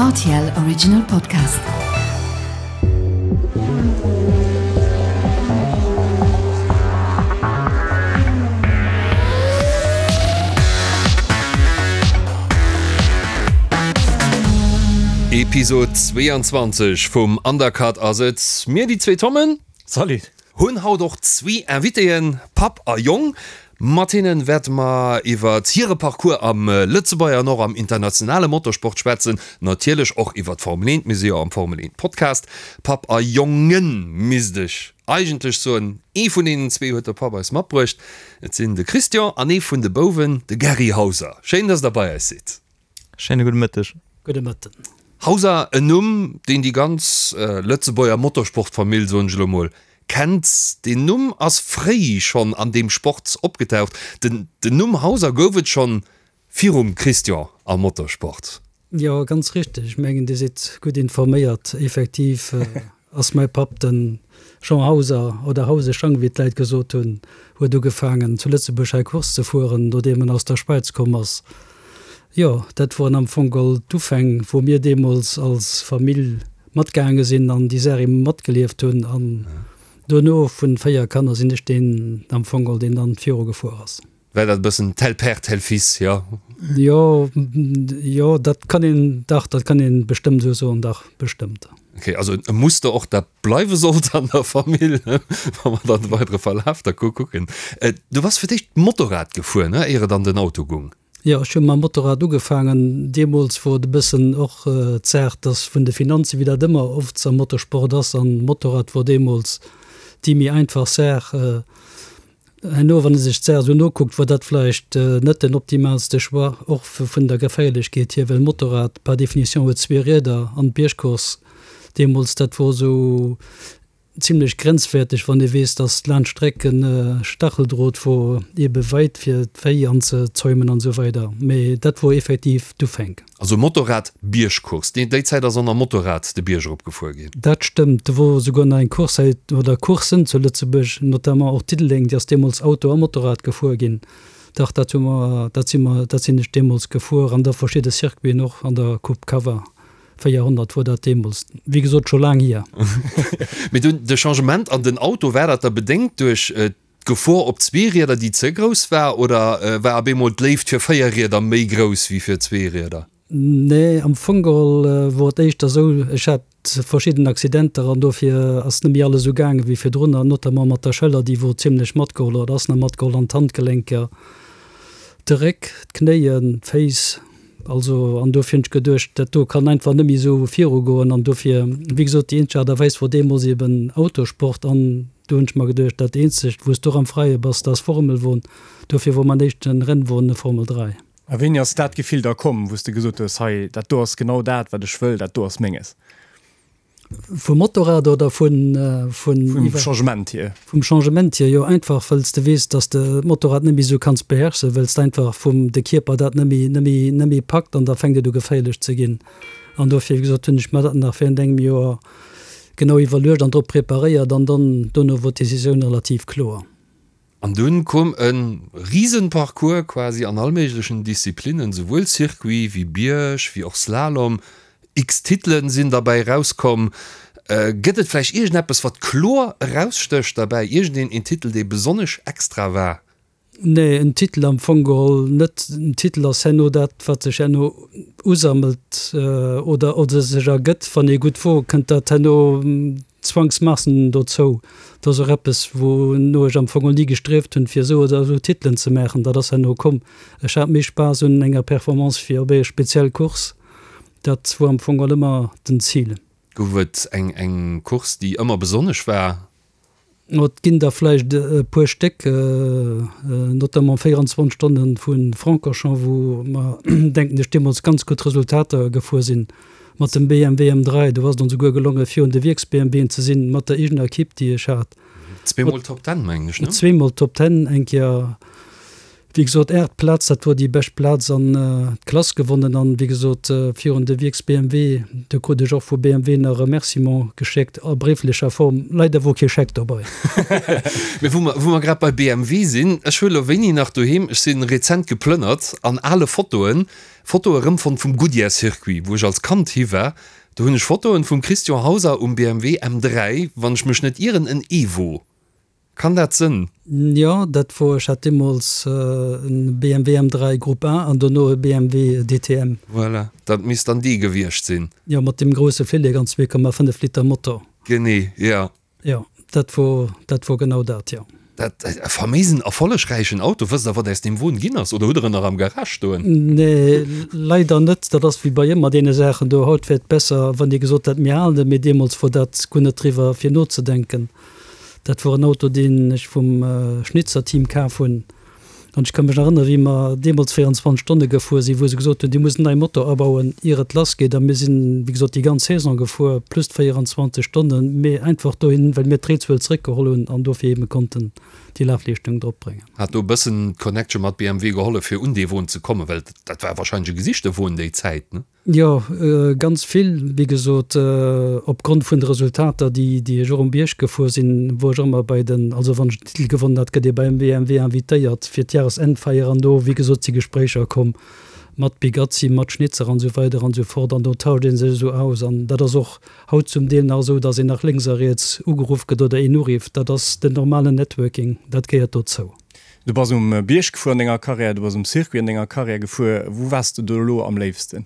Rtl Original Podcast. Episode 22 vum Undercut ass et. Mir, déi zwee Tommen. Salut. Hunn haut och zwee Invitéen, Papp a Jong. Mat hinnen wäerte mer iwwert hire Parcours am Lëtzebuerger an och am internationale Motorsport schwätzen. Natierlech och iwwert d'Formel 1, mir si jo am Formel 1 Podcast. Papp a Jongen misst ech eigentlech soen. Ee vun deenen zwee huet de Papp eis matbruecht. Et sinn de Christian an ee vun de Bouwen, de Gary Hauser. Schéin, dass der bei eis sidd. Schéine gudde Mëtteg. Gudde Mëtten. Hauser, en Numm, deen déi ganz Lëtzebuerger Motorsportfamill, soen ech elo mol, kennt. Deen Numm ass fréi schonn an deem Sport opgetaucht. Den Numm Hauser gouf et schonn virum Christian am Motorsport. Jo, ganz richteg. Ech mengen, Dir sidd gutt informéiert. Effektiv ass mäi Papp, de Jean Hauser, oder Hause Schang, wéi d'Leit gesot hunn, huet ugefaangen, zu Lëtzebuerg hei Course ze fueren, nodeem en aus der Schwäiz komm ass. Jo, dat woren am Fong geholl d'Ufäng, wou mir deemools als Famill matgaange sinn an déi Saach eben matgelieft hunn. An dono, vun 4 Kanner, sinn ech deen am Fong geholl, deen dann viru gefuer ass. War dat e bëssen tel père, tel fils, jo? Jo, jo, dat kann een, dach, dat kann een bestëmmt esou soen, dach, bestëmmt. Ok, also e Muster och, dat bleiwe sollt an der Famill, wa mer dann de weidere Verlaf da kucken. Du bass fir d'éischt Motorrad gefuer, ne, éier et an den Auto gung? Jo, ech hu mam Motorrad ugefaangen. Deemools wor et e bëssen och d'Saach, dass vun de Finanzen, wéi dat ëmmer oft am Motorsport ass, an Motorrad wor deemools déi méi einfach Saach. Herno, wann ee sech d'Saach esou nokuckt, wor dat vläicht net den optimaalste Choix, och vun der Geféierlechkeet hier, well Motorrad par définition huet zwee Rieder an d'Biergcourse deemools, dat wor esou Zimlech grenzwäerteg, wann ee weess, dass laanscht Strecken Stacheldrot wor, ebe weit fir d'Véi anzezäumen an esou weider. Mee dat wor effektiv d'Ufänk. Also Motorrad Biergcourse, déi déi Zäit ass och nach Motorrad de Bierg erop gefuer ginn. Dat stëmmt, do wor esouguer nach eng Course hei, oder Courssen zu Lëtzebuerg, notamment och Diddeleng, déi ass deemools Auto a Motorrad gefuer ginn. Dach, dat hu mer, dat si mer, dat sinn ech deemools gefuer an da verschidde Circuiten och an der Coupe Cava. 400 wor dat deemools, wéi gesot scho laang hier. Mee dunn de Changement an den Auto, war dat da bedéngt duerch d'Gefor op Zweerieder, déi ze grouss war, oder war op eemol d'Léift fir Véierrieder méi grouss wéi fir Zweerieder? Nee, am Fong geholl wor et éischter esou, ech hat verschidden Accidenter an dofir ass net méi alles esou gaange wéi virdrun, an notamment mat der Schëller, déi wor zimlech matgeholl oder ass nach matgeholl, an d'Handgelenker, de Réck, d'Knéien, d'Féiss. Also, an dofir hunn ech geduecht, dat do kann einfach net méi esou virugoen. An dofir, wéi gesot, déi eenzeg Aart a Weis wor deemools eben Autosport. An do hunn ech mer geduecht, dat eenzegt, wou s du och am Freie bass, dat ass Formelwon. Dofir wor mäin éischte Rennwon e Formel 3. A wéini ass dat Gefill da komm, wou s de gesot hues, hei, dat do ass genau dat, wat ech wëll, dat do ass menges? Vum Motorrad oder vun, vun. Vum Changement hier. Vum Changement hier, jo, einfach wëlls de weess, dass de d'Motorrad net méi esou kanns beherrschen, wëlls de einfach vum de Kierper dat net méi, net méi, net méi packt an da fänkt et u geféierlech ze ginn. An dofir, wéi gesot, hunn ech mer dat nach während engem Joer genau iwwerluecht an drop preparéiert an dann dono wor d'Decisioun relativ kloer. An dunn koum e Riesenparcours quasi an all méiglechen Disziplinnen, souwuel Circuit wéi Bierg wéi och Slalom. X Titelen sinn derbäi erauskomm. Gëtt et vläicht iergendeppes wat kloer erausstécht derbäi, iergendeen een Titel dee besonnesch extra war? Nee, en Titel am Fong geholl net. En Titel ass herno dat wat sech herno usammelt oder oder sech ergëtt. Wann ee gutt wor, kënnt dat herno Zwangsmaassen dozou. Dat ass och eppes, wouno ech am Fong och ni gestrieft hunn, fir esou oder esou Titelen ze maachen. Dat ass herno komm. Ech hat méi Spaass un enger Performance fir op eng speziell Course. Dat wor am Fong och ëmmer den Zil. Gouf et eng eng Course, déi ëmmer besonnesch war? Et ginn der vläicht e puer Stéck, notamment 24 Stonne vu Francorchamps, wou mer, denken ech, deemools ganz gutt Resultater gefuer sinn mat dem BMW M3. Do ass et ons esouguer gelongen, virun de Wierks-BMWen ze sinn, mat der eegener Equipe, déi ech hat. Zweemol Top Ten, mengen ech, ne? Zweemol Top Ten, eng Kéier. Wéi gesot, 8 Plaz, dat wor déi bescht Plaz an d'Klass gewonnen an wéi gesot virun de Wierks BMW. Do krut ech och vu BMW nach e Remerciement geschéckt a bréiflecher Form. Leider wor kee Scheck dobei. Mee wou mer, wou mer grad bei BMW sinn, ech hu lo wéini nach doheem, ech si rezent geplënnert an ale Fotoen, Fotoe rëmfonnt vum Goodyear Circuit, wou ech als Kand hi war. Do hunn ech Fotoen vum Christian Hauser um BMW M3, wann ech mech net ieren, en Evo. Kann dat sënn? Jo, dat wor, ech hat deemools en BMW M3 Group A an dono e BMW DTM. Voilà, dat misst dann dee gewiescht sinn. Jo, mat deem grousse Flillek an 2,5 Liter Motor. Genee, jo. Jo, dat wor, dat wor genau dat, jo. Dat e faméisen erfollegräichen Auto. Wësst der, wat aus deem Won ginn ass? Oder hutt der en nach am Garage stoen? Nee, leider net. Dat ass wéi bei ëmmer deene Saachen do. Haut wär et besser, wann dir gesot hätt, mir halen en, mee deemools wor dat guer net driwwer fir nozedenken. Dat wor en Auto, deen ech vum Schnitzer Team kaf hunn. An ech ka mech nach erënneren, wéi mer deemools 24 Stonne gefuer sinn, wou se gesot hunn, Dir musst en neie Motor abauen, ier et lassgeet. A mir sinn, wéi gesot, déi ganz Saison gefuer, plus d'24 Stonnen, mee einfach dohin, well mir d'Réizuel zeréckgeholl hunn an dofir eebe konnten déi Lafleeschtung dropbréngen. Hat do e bëssen d'Connection mat BMW gehollef, fir un dee Won ze kommen? Well dat war wahrscheinlech e gesichte Won déi Zäit, ne? Jo, ganz vill. Wéi gesot, opgrond vun de Resultater, déi déi ech och um Bierg gefuer sinn, wor ech och ëmmer bei den, also wann ech den Titel gewonnen hat, gëtt ee beim BMW invitéiert fir d'Jahresendfeier an do, wéi gesot, si Gespréicher komm mat Bigazzi, mat Schnitzer an esou weider an esou fort an do tauscht ee sech esou aus an dat ass och haut zum Deel nach esou, datt een nach lénks a riets ugeruff gëtt oder een urifft. Dat ass den normalen Networking, dat gehéiert dozou. Du bass um Bierg gefuer an denger Karriär, du bass um Circuit an denger Karriär gefuer. Wou waars de do elo am léifsten?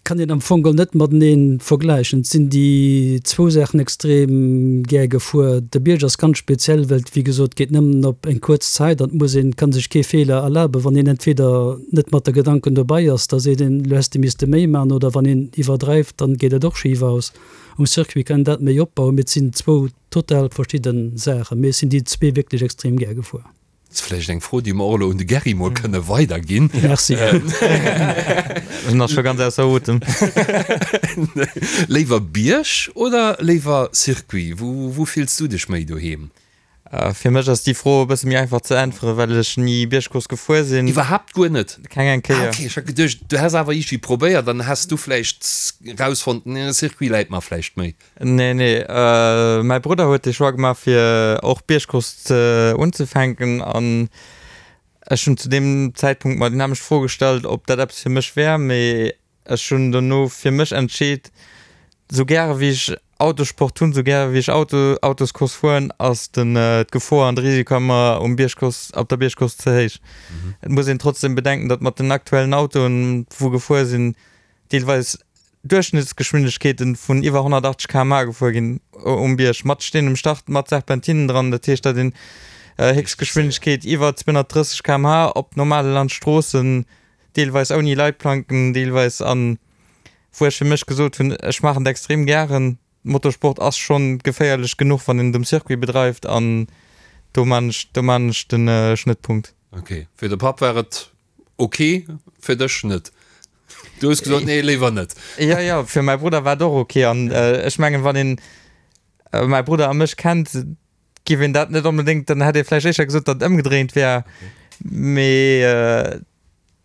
Kann een am Fong geholl net matenee vergläichen. Et sinn déi zwou Saachen extrem gär gefuer. De Bierg ass ganz speziell, well et wéi gesot geet nëmmen op eng kuerz Zäit an et muss een, kann sech kee Feeler erlaben. Wann een entweder net mat de Gedanken dobei ass, da seet een, elo häss de misste méi maachen, oder wann een iwwerdreift, dann geet et och schif aus. Um Circuit kann een dat méi opbauen, mee et sinn zwou Total verschidden Saachen, mee ech sinn déi zwee wierklech extrem gär gefuer. Ass vläicht eng Fro, déi mer och elo un de Gerry mol kënne weiderginn. Merci. En ass scho ganz ausser Otem. Léiwer Bierg oder léiwer Circuit? Wou, wou fills du dech méi doheem? Fir mech ass déi Fro e bësse méi einfach ze äntweren, well ech ni Biergcourse gefuer sinn. Iwwerhaapt guer net? Keng eng Kéier. Ah ok, ech hat geduecht, du häss awer iergendwéi probéiert an häss du vläicht rausfonnt, nee, Circuit läit mer vläicht méi. Nee, nee, mäi Brudder huet de Choix gemaach fir och Biergcourse ze unzefänken an ech hunn zu deem Zäitpunkt mer déi nämmlecht Fro gestallt, ob dat eppes fir mech wär, mee ech hunn dono fir mech entscheet, sou gäre wéi ech Autosport hunn, sou gäre wéi ech Auto, Autoscourse fueren, ass den d'Gefor an de Risiko ëmmer um Biergcourse, op der Biergcourse ze héich. Et muss een trotzdem bedenken, datt mat den aktuellen Autoen, wou gefuer sinn, deelweis Duerchschnëttsgeschwindegkeeten vun iwwer 180 km/h gefuer ginn um Bierg, mat Steen um Start, mat Serpentinen dran. Dat heescht, datt een Héchstgeschwindegkeet iwwer 230 km/h op normale Landstroossen, deelweis ouni Leitplanken, deelweis an wou ech fir mech gesot hunn, ech maachen et extrem gären. Motorsport ass schonn geféierlech genuch, wann een et um Circuit bedreift an do maan ech, do maan ech den Schnëttpunkt. Ok, fir de Papp war et Ok, fir dech net? Du hues gesot, nee, léiwer net. Jo, jo, fir mäi Brudder war et och ok. An ech mengen, wann een mäi Brudder a mech kennt, giff een dat net onbedéngt, dann hätt ee vläicht éischter gesot, datt et ëmgedréint wär. Mee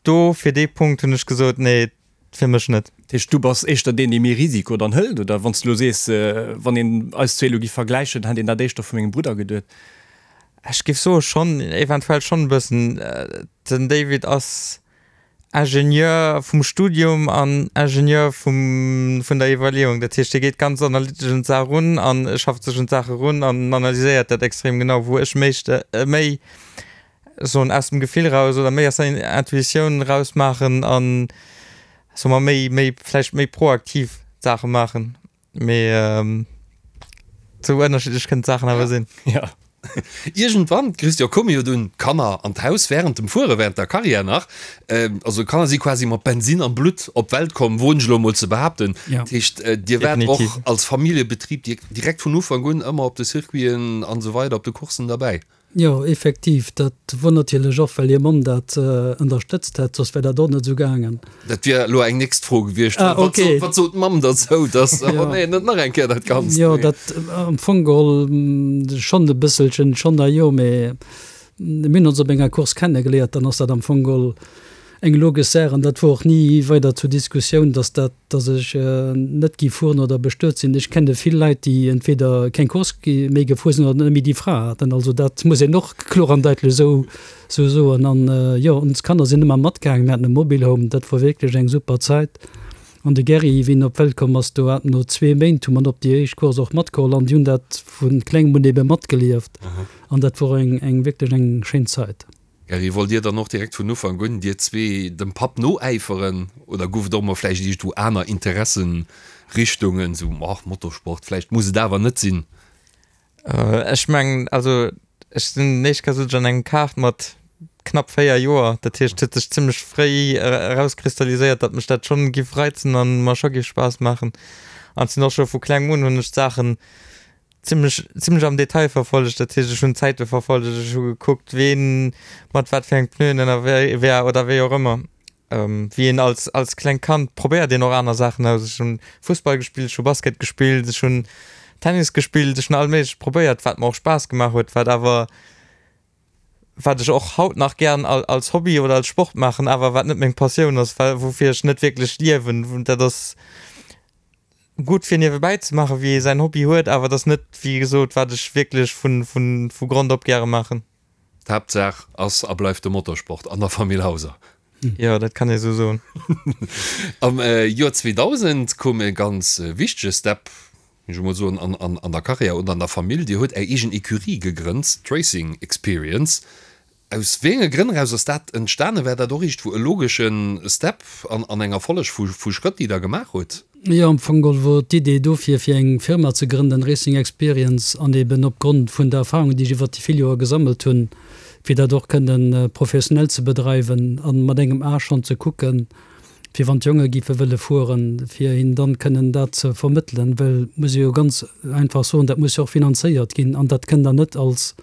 do, fir dee Punkt hunn ech gesot, nee, fir mech net. Dat heescht, du bass éischter deen, dee méi Risiko dann hëlt, oder? Wann s de elo sees, wann een eis zwee elo giff vergläichen, hätt een dat éischter vu mengem Brudder geduet. Ech giff soe schonn, eventuell schonn e bëssen. Den David ass Ingenieur vum Studium an Ingenieur vum, vun der Iwwerleeung. Dat heescht, hie geet ganz analytesch un d'Saach erun an schafft sech un d'Saach erun an analyséiert dat extrem genau, wou ech méi, méi soen aus dem Gefill raus oder méi aus der Intuitioun raus maachen an, soe mer, méi, méi vläicht méi proaktiv d'Saache maachen. Mee sou ënnerschiddlech kënnen d'Saachen awer sinn. Ja. Iergendwann, Christian, koume jo dunn d'Kanner an d'Haus wärend dem Fuere, wärend der Karriär nach. Also d'Kanner si quasi mat Bensinn am Blutt op d'Welt komm, woen ech elo emol ze behaapten. Ja. Dat heescht, dir waart och Definitiv. als Familljebetrib direkt vun Ufank un ëmmer op de Circuiten an esou weider, op de Courssen derbäi. Jo, effektiv, dat wor natierlech och, well hir Mamm dat ënnerstëtzt hätt, soss wär dat och net esou gaangen. Dat wier elo eng nächst Fro gewiescht. Ah, Wat ok. sot, wat sot d'Mamm derzou, dass, oh nee, net nach eng Kéier dat Ganzt? Jo, dat am Fong geholl schonn e bësselchen, schonn a jo, mee. Mir hunn ons op enger Course kennegeléiert, dann ass dat am Fong geholl eng logesch Saach an dat wor och ni weider zur Diskussioun, dass dat, dass ech net gi fueren oder bestuet sinn. Ech kenne vill Leit, déi entweder keng Course méi gefuer sinn oder net méi déi Fra haten. Also dat muss een och kloer an daitlech esou soen. An jo, ons Kanner sinn ëmmer matgaangen. Mir haten e Mobilhome, dat wor wierklech eng super Zäit. An de Gerry, wéi en op d'Welt komm ass, do hat no zwee Méint hu mer en op déi éischt Course och matgeholl an déi hunn dat vu klengem un ebe matgelieft. An dat wor eng, eng wierklech eng schéin Zäit. Gerry, wollt Dir dann och direkt vun Ufank un, dir zwee, dem Papp noäiferen oder gouf et och mol vläicht iergendwou aner Interessenrichtungen, sou, ach, Motorsport, vläicht muss et awer net sinn? Ech mengen, also ech sinn éischt Kéier sot ech an engem Kart mat knapp 4 Joer. Dat heescht, et huet sech zimmlech fréi erauskristalliséiert, datt mech dat schonn giff reizen an mer scho giff Spaass maachen. An et sinn och scho vu klengem un hunn ech d'Saachen zimmlech zimmlech am Detail verfollegt. Dat heescht, ech hunn d'Zäite verfollegt, ech hu gekuckt, ween mat wat fir eng Pneuen ënnerwee war oder wéi och ëmmer. Wéi een als, als klengt Kand probéiert een och aner Saachen aus. Ech hunn Fussball gespillt, ech hu Basket gespillt, ech hunn Tennis gespillt, ech hunn all Méiglecht probéiert, wat mer och Spaass gemaach huet, wat awer, wat ech och haut nach gären als Hobby oder als Sport maachen, awer wat net meng Passioun ass, well woufir ech net wierklech liewen. Dat ass gutt fir niewebäi ze maachen, wéi ee säin Hobby huet, awer et ass net, wéi gesot, wat ech wierklech vun, vun, vu Grond op gäre maachen. D'Haaptsaach ass a bleift de Motorsport an der Famill Hauser. Jo, dat kann ee sou soen. Am Joer 2000 koum e ganz wichtege Step, géing ech emol soen, an der Karriär oder an der Famill. Dir hutt Är eegen Ecurie gegrënnt, d'Racing Experience. Aus wéi enge Grënn eraus ass dat entstanen? War dat och iergendwou e logesche Step an enger Folleg vu Schrëtt, déi Der gemaach hutt? Jo, am Fong geholl wor d'Idee dofir, fir eng Firma ze grënnen, Racing Experience, an eben opgrond vun der Erfahrung, déi ech iwwert déi vill Joer gesammelt hunn, fir dat och kënnen professionell ze bedreiwen an mat engem A schonn ze kucken, fir wann d'Jonge géife wëlle fueren, fir hinnen dann kënnen dat ze vermëttelen, well, muss ee jo ganz einfach soen, dat muss jo och finanzéiert ginn an dat kënnt Der net als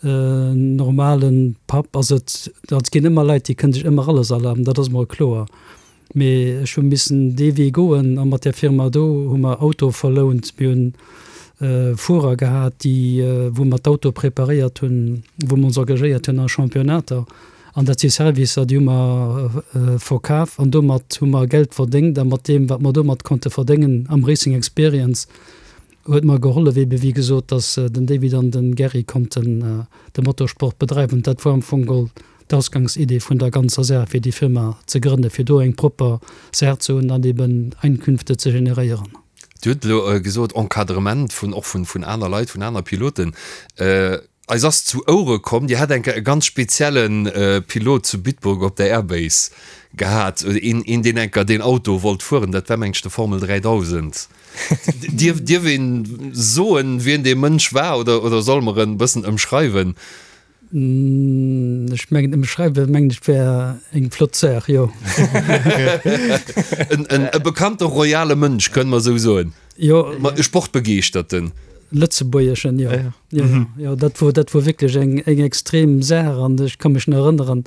normale Papp. Also et ginn ëmmer Leit, déi kënnen sech ëmmer alles erlaben, dat ass mol kloer. Mee ech hu missen dee Wee goen a mat där Firma do hu mer Autoe verlount. Mir hunn Fuerer gehat, déi, wou mer d'Autoe preparéiert hunn, wou mer ons engagéiert hunn a Championnater. An dat si Servicer, déi hu mer verkaf an domat hu mer Geld verdéngt. A mat deem, wat mer domat konnte verdéngen am Racing Experience, huet mer gehollef, ebe wéi gesot, dass den David an den Gerry konnten de Motorsport bedreiwen. Dat war am Fong geholl d'Ausgangsidee vun der ganzer Saach, fir déi Firma ze grënnen, fir do eng propper Saach ze hunn an eben Einkünfte ze generéieren. Dir hutt elo gesot, Encadrement vun, och vun, vun aner Leit, vun aner Piloten. Eis ass zu Ouere komm, Dir hätt eng Kéier e ganz spezielle Pilot zu Bitburg op der Airbase gehat, een, een deen eng Kéier deen Auto wollt fueren, dat war meng ech de Formel 3000. Dierf, dierf een soen, wien dee Mënsch war oder, oder solle mer en bëssen ëmschreiwen? Ech mengen ëmschreiwe mengen ech wär eng flott Saach, jo. E bekannte royale Mënsch, kënne mer esou soen. Jo. E Sportbegeeschterten. Lëtzebuergeschen, jo. Jo, jo, dat wor, dat wor wierklech eng, eng extrem Saach an ech ka mech nach erënneren,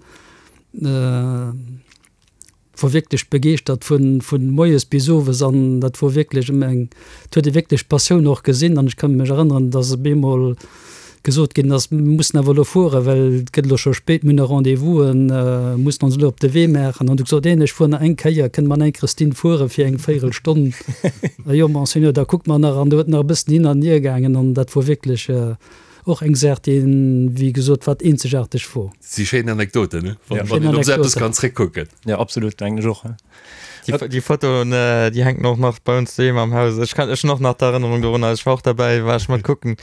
wor wierklech begeeschtert vun vun moies bis owes an dat wor wierklech ëm eng, et huet ee wierklech d'Passioun och gesinn an ech ka mech erënneren, dass op eemol gesot ginn ass, mir mussen awer elo fueren, well et gëtt elo scho spéit, mir hunn nach Rendez-vousen, mussen ons elo op de Wee maachen an du gesot, een ech fuer nach eng Kéier, kënne mer nach eng Christine fuere fir eng Véierelstonn? Jo Monseigneur, da kucke mer nach an do huet nach e bëssen hin an hier gaangen an dat wor wierklech Och eng Saach, déi een, wéi gesot, wat eenzegaarteg wor. Si schéin Anekdoten, ne? Wann wann een op esou eppes kann zréckkucken. Jo, absolut, mengen ech och. Déi, déi Fotoen, déi hänken och nach bei ons doheem am Haus. Ech kann, ech hunn och nach d'Erënnerung dorunner. Ech war och derbäi, war ech mat kucken.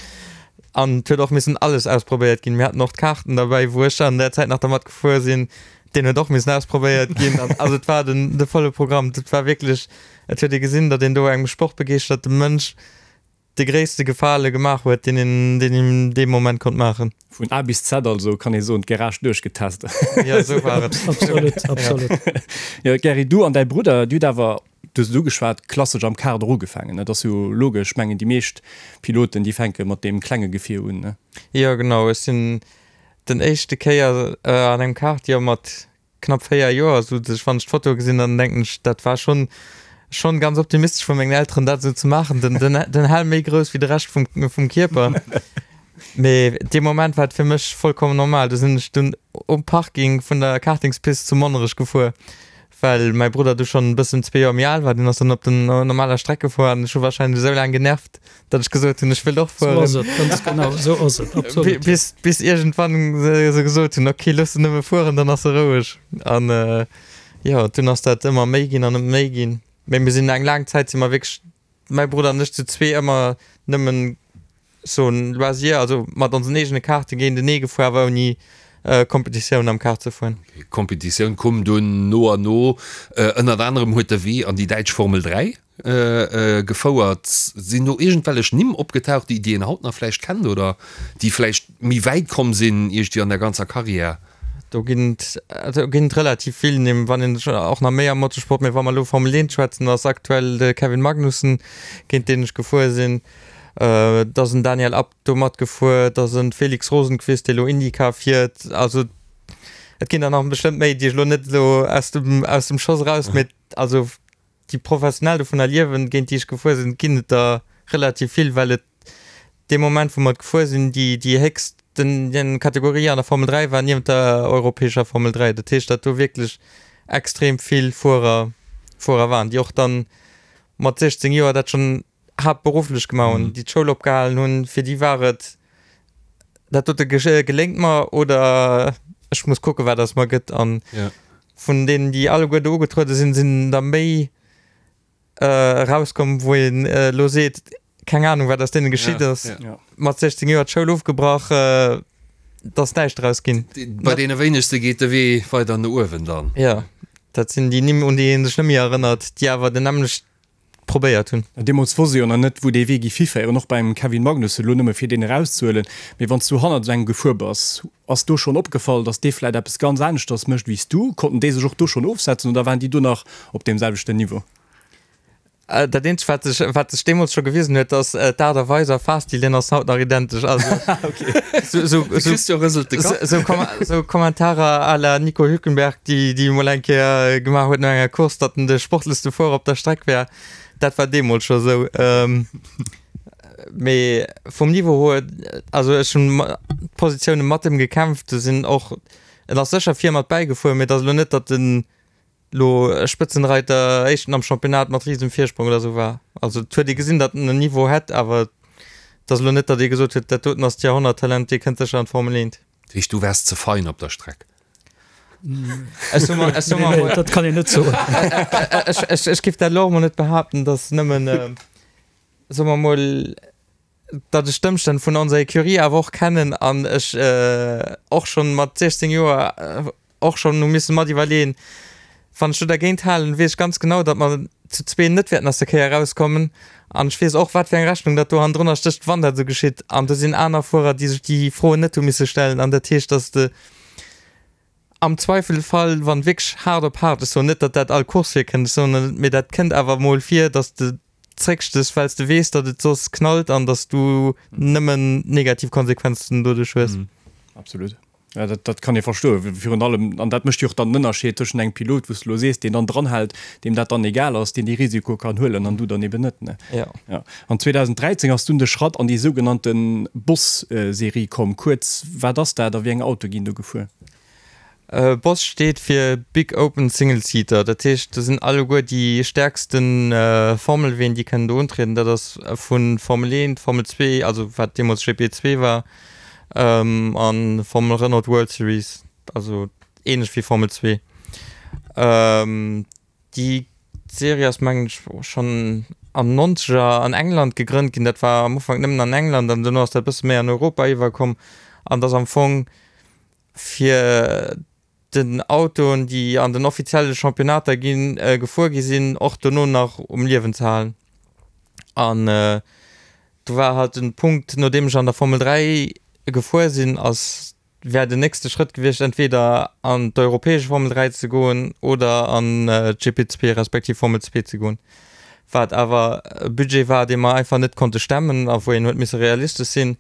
An et huet och missen alles ausprobéiert ginn. Mir haten och d'Kaarten derbäi, wou ech an där Zäit nach dermat gefuer sinn. Deen huet och missen ausprobéiert ginn. An also et war den, de volle Programm. Dat war wierklech, et huet ee gesinn, datt een do engem sportbegeeschterte Mënsch de gréisste Gefale gemaach huet, deen een, deen een dee Moment konnt maachen. Vun A bis Z also, kann ee soen, d'Garage duerchgetest. Jo, esou war et. Absolut, absolut. Jo, Gerry, du an däi Brudder, dir hutt awer, du hues et ugeschwat, klassesch am Kart och ugefaangen, ne? Dat ass jo logesch, ech mengen, déi meescht Piloten, déi fänke mat deem klenge Gefier un, ne? Jo, genau. Ech sinn den éischte Kéier an engem Kart, jo, mat knapp 4 Joer, sou dass ech, wann ech d'Foto gesinn, dann denken ech, dat war schonn, schonn ganz optimistesch vu mengen Elteren, dat esou ze maachen, den, den, den Helm méi grouss wéi de Rescht vum, vum Kierper. Mee dee Moment war et fir mech vollkommen normal. Du sinn ech dunn um Parking vun der Kartingspist zu Monnerech gefuer, well mäi Brudder du schonn e bëssen zwee Joer méi al war. Deen ass dann op den normaler Streck gefuer an ech hu warscheinlech esou laang genervt, datt ech gesot hunn, ech wëll och fueren. Sou ass et, ganz genau, sou ass et, absolut. Bis, bis iergendwann se, se gesot hunn, okay, looss en nëmme fueren, dann ass e roueg. An jo, dunn ass dat ëmmer méi ginn an ëmmer méi ginn. Mee mir sinn eng laang Zäit si mer wierklech mäi Brudder an ech zu zwee ëmmer nëmmen so en Loisir, also mat onsen eegene Kaarte géintenee gefuer, awer ouni Kompetitioun am Kart ze fueren. Kompetitioun koum dunn no an no. Ënnert anerem huet de Wee an déi däitsch Formel 3 gefouert. Sinn do iergendwellech Nimm opgetaucht, déi een haut nach vläicht kennt oder déi vläicht méi wäit komm sinn iergendwéi an der ganzer Karriär? Do ginn et, do ginn et relativ vill Nimm, wann een och nach méi am Motorsport, mee wa mer elo Formel 1 schwätzen, ass aktuell de Kevin Magnussen, géint deen ech gefuer sinn, et ass en Daniel Abt do matgefuer, et ass e Felix Rosenqvist, dee elo IndyCar fiert. Also et ginn der nach bestëmmt méi, déi ech elo net elo aus dem, aus dem Schoss eraus, mee also déi professionell dovunner liewen, géint déi ech gefuer sinn, ginn et der relativ vill, well et dee Moment, wou mer et gefuer sinn, déi, déi héchsten Kategorie an der Formel 3 war niewent der europäescher Formel 3. Dat heescht, datt do wierklech extrem vill Fuerer, Fuerer waren, déi och dann mat 16 Joer dat schonn haaptberufflech gemaach hunn, déi d'Schoul opgehalen hunn. Fir déi war et, dat dote geléngt mer oder ech muss kucken, wat aus mer gëtt. An vun deenen, déi alleguer do ugetruede sinn, sinn der méi erauskomm, wou een elo seet, keng Anung, wat aus deene geschitt ass. Mat 16 Joer d'Schoul ofgebrach, et ass näischt draus ginn. Bei deene wéinegste geet de Wee weider no uewen dann. Jo, dat sinn déi Nimm, un déi ee sech net méi erënnert, déi awer den nämmlecht probéiert hunn. Deemools wosst ee jo nach net, wou dee Wee géif hiféieren, och beim Kevin Magnussen, elo nëmme fir deen erauszehuelen. Mee wann s du hannert esou engem gefuer bass, ass do schonn opgefall, datt dee vläit eppes ganz aneschters mécht wéi s du? Konnten déi sech och do schonn ofsetzen oder waren déi do nach op deem selwechten Niveau? Dat eenzegt, wat sech, wat sech deemools scho gewisen huet, ass d'Aart a Weis a Fahrstil, deen ass haut nach identesch. Also sou, sou, De Christian rëselt de Kapp. sou, sou Kommentarer à la Nico Hülkenberg, déi, déi emol eng Kéier gemaach huet no enger Course, datt en de sportlechste Fuerer op der Streck wär, dat war deemools scho sou. Mee vum Niveau huet, also ech hunn d'Positioune mat em gekämpft, do sinn och, en ass sécher vir mat bäigefuer, mee et ass elo net, datt en lo Spëtzenreiter, éischten am Championnat mat risem Virsprong oder sou war. Also et huet ee gesinn, datt en en Niveau hätt, awer et ass elo net, datt ee gesot huet, dat doten ass d'Jahrhonnerttalent, dee kënnt sécher an d'Formel 1. Dat heescht, du waars ze fein op der Streck? Ech soe mer, ech soe mer emol. Dat kann een net soen. Ech, ech, ech géif dat elo och emol net behaapten, datt nëmmen, soe mer emol, datt ech d'Ëmstänn vun onser Ecurie awer och kennen an ech och schonn mat 16 Joer och schonn hu misse mat iwwerleeën, wann ech do dergéint halen, weess ech ganz genau, datt mer zu zwee net wäerten aus der Kéier erauskommen an ech weess och, wat fir eng Rechnung datt do hannendrunner stécht, wann dat esou geschitt. An do sinn aner Fuerer, déi sech déi Froen net hu misse stellen an dat heescht, datt de am Zweifelfall, wann wierklech haart op haart, ech soen net, datt dat all Course virkënnt, ech soen net, mee dat kënnt awer emol vir, datt de zréckstes, well s de weess, datt et soss knallt an datt s du nëmmen negativ Konsequenzen doduerch hues. Absolut. Ja, dat, dat kann ee verstoen. Virun allem, an dat mécht jo och dann den Ënnerscheed tëschent engem Pilot, wou s de elo sees, deen dann dranhält, deem dat dann egal ass, deen dee Risiko kann huelen, an du dann eben net, ne? Ja. Ja. An 2013 ass dunn de Schratt an déi sougenannte Boss-Serie komm. Kuerz, wat ass dat a wéi eng Autoe ginn do gefuer? Boss steet fir Big Open Single Seater, dat heescht do sinn alleguer déi stäerkste Formelween déi kënnen do untrieden. Dat ass vu Formel 1, Formel 2, also wat deemools GP2 war, a Formel Renault World Series, also ähnlech wéi Formel 2. Déi Serie ass mengen ech schonn an Nonzeger an England gegrënnt ginn. Dat war am Ufank nëmmen an England an dono ass dat e bësse méi an Europa iwwerkomm an et ass am Fong fir den Autoen, déi an den offizielle Championnater ginn, gefuer gi sinn, och dono nach um Liewen ze halen. An do war halt den Punkt, nodeem ech an der Formel 3 gefuer sinn, ass, wär den nächste Schrëtt gewiescht, entweder an d'europäesch Formel 3 ze goen oder an d'GP2 respektiv Formel 2 ze goen, wat awer e Budget war, dee mer einfach net konnte stemmen a wou een huet misse realistesch sinn.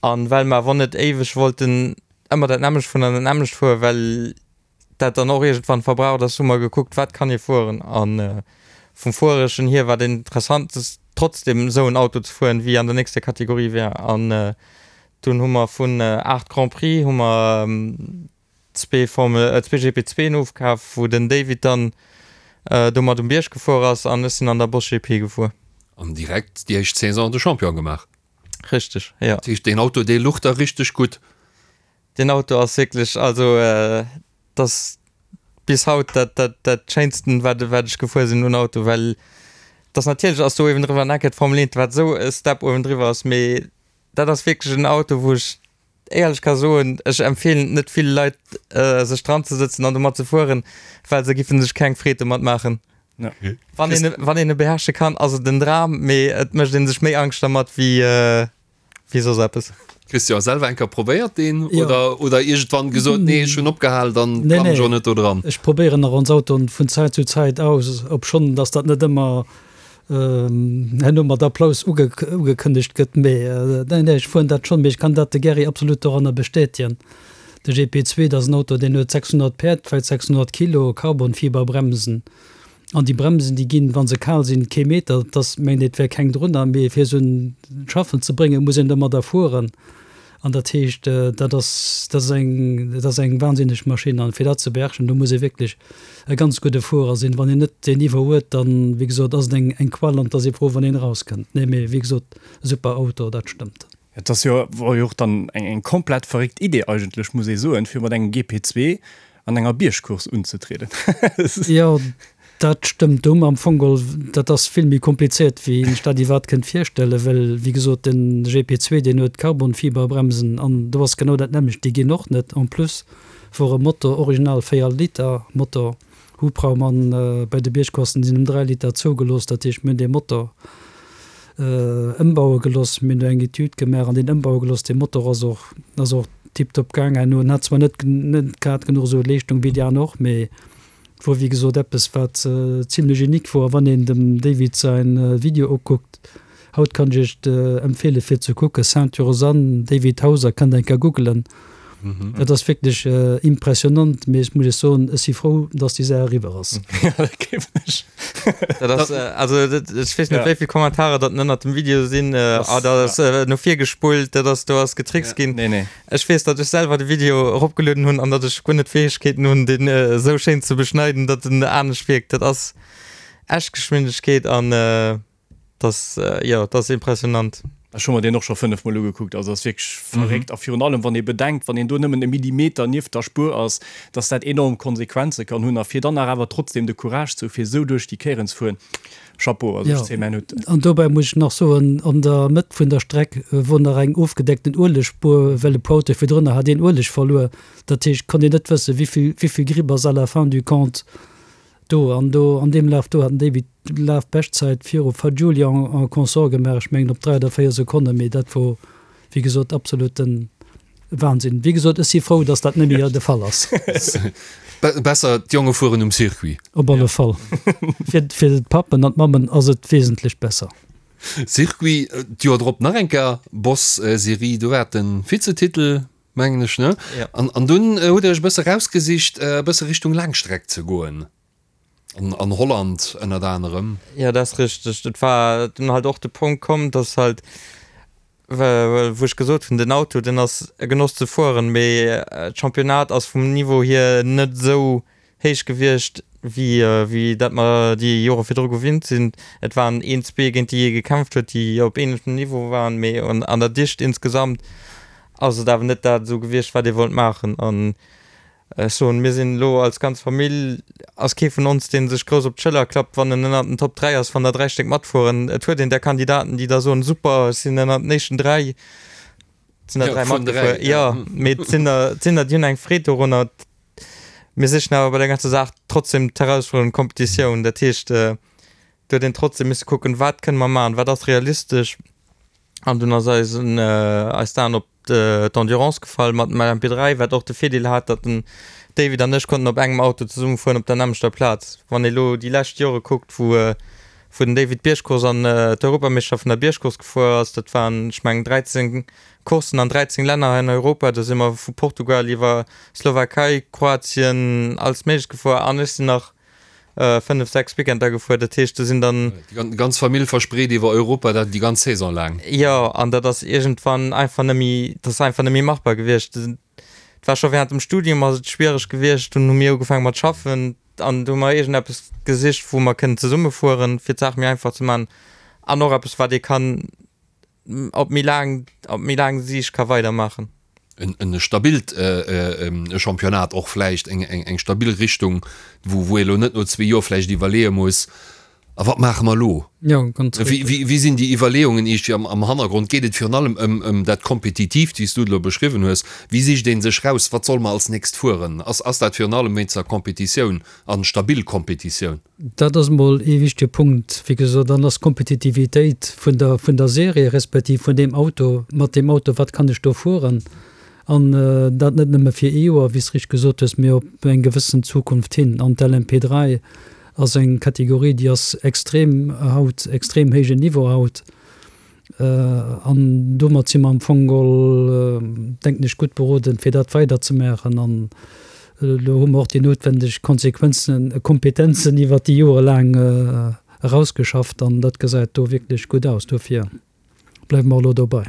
An well mer awer net éiweg wollten ëmmer dat nämmlecht fueren an dat nämmlecht fueren, well dat dann och iergendwann verbraucht ass, hu mer gekuckt, wat kann ee fueren. A vum Fuereschen hier war den interessantest trotzdem esou en Auto ze fueren, wéi an der nächster Kategorie wär. An. Dunn hu mer vun 8 Grand Prix hu mer zwee Formel, zwee GP2en ofkaf, wou den David dann domat um Bierg gefuer ass an ech sinn an der Boss GP gefuer. An direkt déi éischt Saison de Champion gemaach. Richteg, jo. Dat heescht, deen Auto, dee luch der richteg gutt. Deen Auto ass wierklech, also et ass bis haut dat, dat, dat schéinsten, wat, wat ech gefuer sinn un Auto, well et ass natierlech ass do uewendriwwer en Eck d'Formel 1, wat esou e Step uewendriwwer ass, mee dat ass wierklech en Auto, wou ech éierlech ka soen, ech empfeelen et net ville Leit, sech dran ze sëtzen an domat ze fueren, well se giffen sech keng Freed domat maachen. Wann een, wann een e beherrsche kann, ass et en Dram, mee et mécht ee sech méi Angscht dermat wéi, wéi soss eppes. Christian, selwer eng Kéier probéiert deen oder, oder iergendwann gesot, nee ech hunn opgehal, dann klammen ech och net do dran? Ech probéieren nach ons Autoen vun Zäit zu Zäit aus, obschonn dass dat net ëmmer herno mat Applaus ugekënnegt gëtt, mee nee, nee, ech fueren dat schonn, mee ech kann dat de Gerry absolut doranner bestätegen. De GP2, dat ass en Auto, deen huet 600 Päerd, vläicht 600 Kilo, Carbonfiberbremsen. An déi Bremsen, déi ginn, wa se kal sinn, kee Meter, et ass, mengt een, et wär keng drunner, mee fir se un d'Schaffen ze bréngen, muss een domadder fueren. An dat heescht, dat ass, dat ass eng, dat ass eng wahnsinneg Maschinn. An fir dat ze beherrschen, do muss ee wierklech e ganz gudde Fuerer sinn. Wann een net deen Niveau huet, dann, wéi gesot, ass et eng, eng Qual an et ass ee frou, wann een erauskënnt. Nee, mee wéi gesot, super Auto, dat stëmmt. Et ass jo, wor jo och dann eng, eng komplett verréckt Idee eigentlech, muss ee soen, fir mat engem GP2 an enger Biergcourse unzetrieden. Jo, dat stëmmt. Do hu mer am Fong geholl, dat ass vill méi komplizéiert, wéi een sech dat iwwerhaapt kënnt virstellen, well, wéi gesot, den GP2, deen huet Carbonfiberbremsen an do ass genau dat nämmlecht, déi ginn och net. En plus wor e Motor, original 4 Liter Motor, Hubraum an bei de Biergcourssen sinn ëm 3 Liter zougelooss. Dat heescht, mir hunn dee Motor ëmbaue gelooss, mir hunn do eng Etüd gemaach an deen ëmbaue gelooss. Dee Motor ass och, ass och tiptop gaang herno. En hat zwar net, net grad genuch esou Leeschtung wéi déi aner och, mee et wor wéi gesot eppes wat zimlech unique wor. A wann een dem David säin Video ukuckt, haut kann ech iech empfeele fir ze kucken, Sainte-Rosanne, David Hauser, kënnt eng Kéier googelen. Dat ass wierklech impressionant, mee ech muss iech soen, ech si frou, dass déi Saach eriwwer ass. Ja, dat gleewen ech. Dat ass, also ech weess net, wéi vill Kommentarer datt ënnert dem Video sinn, ah, dat ass no vir gespullt, dat ass, do ass getrickst ginn. Nee, nee. Ech weess, datt ech selwer de Video eropgelueden hunn an datt ech guer net d'Fäegkeeten hunn, deen esou schéin ze beschneiden, datt en anescht wierkt. Dat ass echt Geschwindegkeet an. Das, jo, dat ass impressionant. Ech hu mer deen och scho 5 mol ugekuckt, also ass wierklech verréckt. A virun allem wann ee bedenkt, wann een do nëmmen e Millimeter nieft der Spuer ass, dass dat enorm Konsequenze kann hunn. A fir dann nach awer trotzdem de Courage ze hu fir esou duerch déi Kéieren ze fueren, Chapeau, also ech zéie mäin Hutt. An dobäi muss ech nach soen, an der Mëtt vun der Streck wor nach eng ofgedeckten Uelegspuer, well e puer Autoe virdrunner hat een Ueleg verluer. Dat heescht, konnt een net wëssen, wéivill, wéivill Gripp ass à la fin du compte Do an do an deem Laf do hat den David d'Lafbeschtzäit viru Fagioli en consort gemaach, ech mengen op 3 oder 4 Sekonnen, mee dat wor wéi gesot absoluten Wahnsinn. Wéi gesot, ech si frou, datt dat net méi de Fall ass. Besser d'Jonge fueren um Circuit. Op alle Fall. Fir fir d'Pappen an d'Mammen ass et wesentlech besser. Circuit, d'Joer drop nach eng Kéier Boss-Serie, do war et de Vizetitel. Mengen ech, ne? Ja. An, an dunn hutt Dir Iech e bësse rausgesicht, e bësse Richtung Laangstreck ze goen. An, an Holland ënnert anerem. Ja, dat ass richteg. Et war dunn halt och de Punkt komm, dass halt, wou ech gesot hunn, den Auto, deen ass e Genoss ze fueren, mee d'Championnat ass vum Niveau hier net esou héich gewiescht, wéi wéi dat mer déi Jore virdru gewinnt sinn. Et waren een, zwee géint déi ee gekämpft huet, déi op ähnlechem Niveau waren, mee an der Dicht insgesamt ass et awer net dat esou gewiescht, wat ee wollt maachen. An ech soen, mir sinn elo als ganz Famill, ass kee vun ons, dee sech grouss op d'Schëller klappt, wann en ënnert den Top 3 ass, wann der 3 Stéck matfueren. Et huet een där Kandidaten, déi da soen, super, ech sinn ënnert den éischten 3, et sinn der 3 matgefuer, jo, mee et sinn der, et sinn der, déi hunn eng Freed dorunner. Mir sichen awer bei der ganzer Saach trotzdem d'Herausfuerderung Kompetitioun. Dat heescht, do huet een trotzdem misse kucken, wat kënne mer maachen, wat ass realistesch. An dunn ass eisen, eis d'Aen op d'Endurance gefall mat dem LMP3, wat och de Virdeel hat, datt den David an ech konnten op engem Auto zesumme fueren op der nämmlechter Plaz. Wann ee lo déi lescht Jore kuckt, wou wou den David d'Biergcourse an d'Europameeschterschaft vun der Biergcourse gefuer ass, dat waren, ech mengen, 13 Courssen an 13 Länner hei an Europa, do si mer vu Portugal iwwer Slowakei, Kroatien, alles Méiglecht gefuer an ech sinn nach. 5, 6 Weekender gefuer. Dat heescht, do sinn dann. Déi ganz Famill verspreet iwwer Europa, dat déi ganz Saison laang. Jo, an dat ass iergendwann einfach net méi, dat ass einfach net méi machbar gewiescht. Et war scho während dem Studium ass et schwiereg gewiescht, dunn hu mir ugefaange mat schaffen an do hu mer iergendeppes gesicht, wou mer kënnen zesumme fueren, fir d'Saach méi einfach ze maachen an och eppes, wat ee kann op méi laang, op méi laang Siicht ka weidermaachen. En stabilt Championnat och vläicht, eng stabil Richtung, wou ee elo net no zwee Joer vläicht iwwerleeë muss, A wat maache mer elo? Wéi sinn déi Iwwerleeungen iergendwéi am Hannergrond? Geet et virun allem ëm dat Kompetitiivt, wéi s du et elo beschriwwen hues? Wéi sicht ee sech raus, wat solle mer als nächst fueren? Ass dat virun allem wéinst der Kompetitioun an stabil Kompetitioun? Dat ass emol ee wichtege Punkt. Wéi gesot, dann ass d'Kompetitivitéit vun der, vun der Serie respektiv vun deem Auto, mat deem Auto, wat kann ech do fueren? An dat net nëmme fir ee Joer, wéi s de richteg gesot hues, mee op eng gewëssen Zukunft hin. An d'LMP3 ass eng Kategorie, déi ass extrem haut, extrem héijen Niveau haut. An domat si mer am Fong geholl, denken ech, gutt beroden, fir dat weiderzemaachen. An elo hu mer och déi noutwendeg Konsequenzen, Kompetenzen iwwert déi Jore laang erausgeschafft an dat gesäit do wierklech gutt aus. Dofir bleiwe mer elo dobei.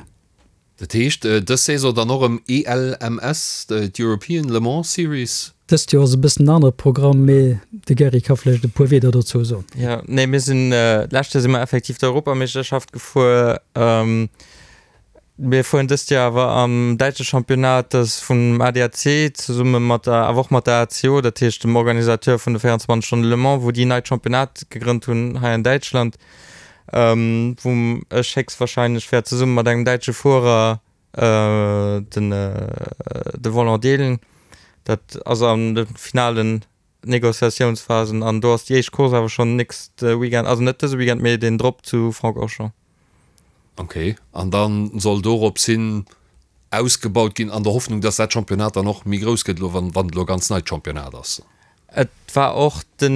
Dat heescht dës Saison dann och erëm ELMS, d'European Le Mans Series? Dëst Joer ass e bëssen en anere Programm, mee de Gerry ka vläicht e puer Wieder dozou soen. Jo, nee, mir sinn, d'lescht Joer si mer effektiv d'Europameeschterschaft gefuer. Mir fueren dëst Joer awer am däitsche Championnat, dat ass vum ADAC zesumme mat der, awer och mat der ACO, dat heescht dem Organisateur vun de 24 Stonnen Le Mans, wou déi neit Championnat gegrënnt hunn hei an Däitschland. wou ech héchstwahrscheinlech wäert zesumme mat engem däitsche Fuerer den de Volant deelen. Dat ass an de finalen Negociatiounsphasen an do ass déi éischt Course awer schonn nächste Weekend, also net dëse Weekend, mee deen drop zu Francorchamps. Ok, an da soll dorops hin ausgebaut ginn an der Hoffnung, dass dat Championnat dann och méi grouss gëtt elo, wann et elo e ganz neit Championnat ass? Et war och den.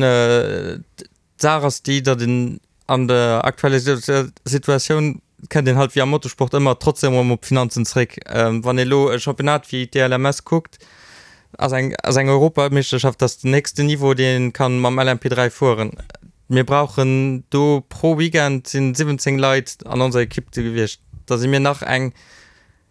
D'Saach ass déi, datt een an der aktueller Situatioun, kënnt een halt wéi am Motorsport ëmmer trotzdem erëm op d'Finanzen zréck. Wann ee elo e Championnat wéi d'ELMS kuckt, ass eng ass eng Europameeschterschaft, dat ass den héchsten Niveau, deen ee kann mam LMP3 fueren. Mir brauchen do pro Weekend sinn 17 Leit an onser Ekipp do gewiescht. Da si mir nach eng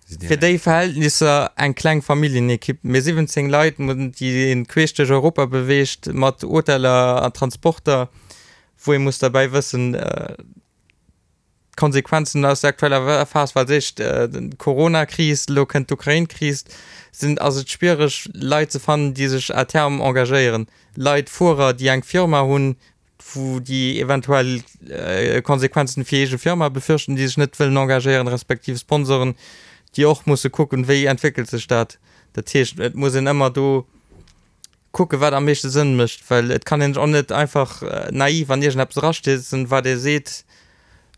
Fir déi Verhältnisser eng kleng Familljenekipp, mee 17 Leit, déi een queesch duerch Europa beweegt, mat Hoteller a Transporter, wou ee muss derbäi wëssen, d'Konsequenzen aus der aktueller Phas, well als éischt d'Corona-Kris, elo kënnt d'Ukrain-Kris, sinn, ass et schwiereg Leit ze fannen, déi sech à terme engagéieren. Leit, Fuerer, déi eng Firma hunn, wou déi eventuell Konsequenzen fir eege Firma befürchten, déi sech net wëllen engagéieren, respektiv Sponsoren, déi och musse kucken, wéi entwéckelt sech dat. Dat heescht, et muss een ëmmer do kucken, wat am meeschte Sënn mécht, well et kann een sech och net einfach naiv an iergendeppes erastierzen, wat ee seet,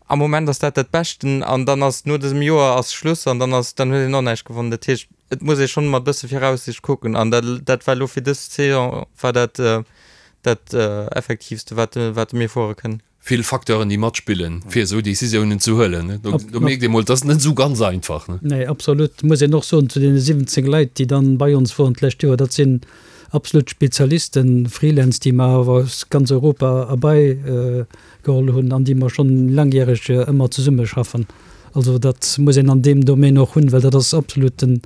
am Moment ass dat dat Beschten an dann ass no dësem Joer ass Schluss an dann ass, dann huet een och näischt gewonnen. Dat heescht, et muss ee schonn mat e bësse Viraussicht kucken an dat, dat war elo fir dës Saison war dat dat Effektiivste, wat, wat mir fuere kënnen. Vill Facteuren, déi matspillen, fir esou Decisiounen ze huelen. Do, do mierkt ee mol, et ass net esou ganz einfach. Nee, absolut. Muss een och soen, zu deene 17 Leit, déi dann bei ons woren d'lescht Joer, dat sinn absolut Spezialisten, Freelance, déi mer awer aus ganz Europa erbei geholl hunn an déi mer schonn langjäreg ëmmer zesummeschaffen. Also dat muss een an deem Domaine och hunn, well dat ass absolut de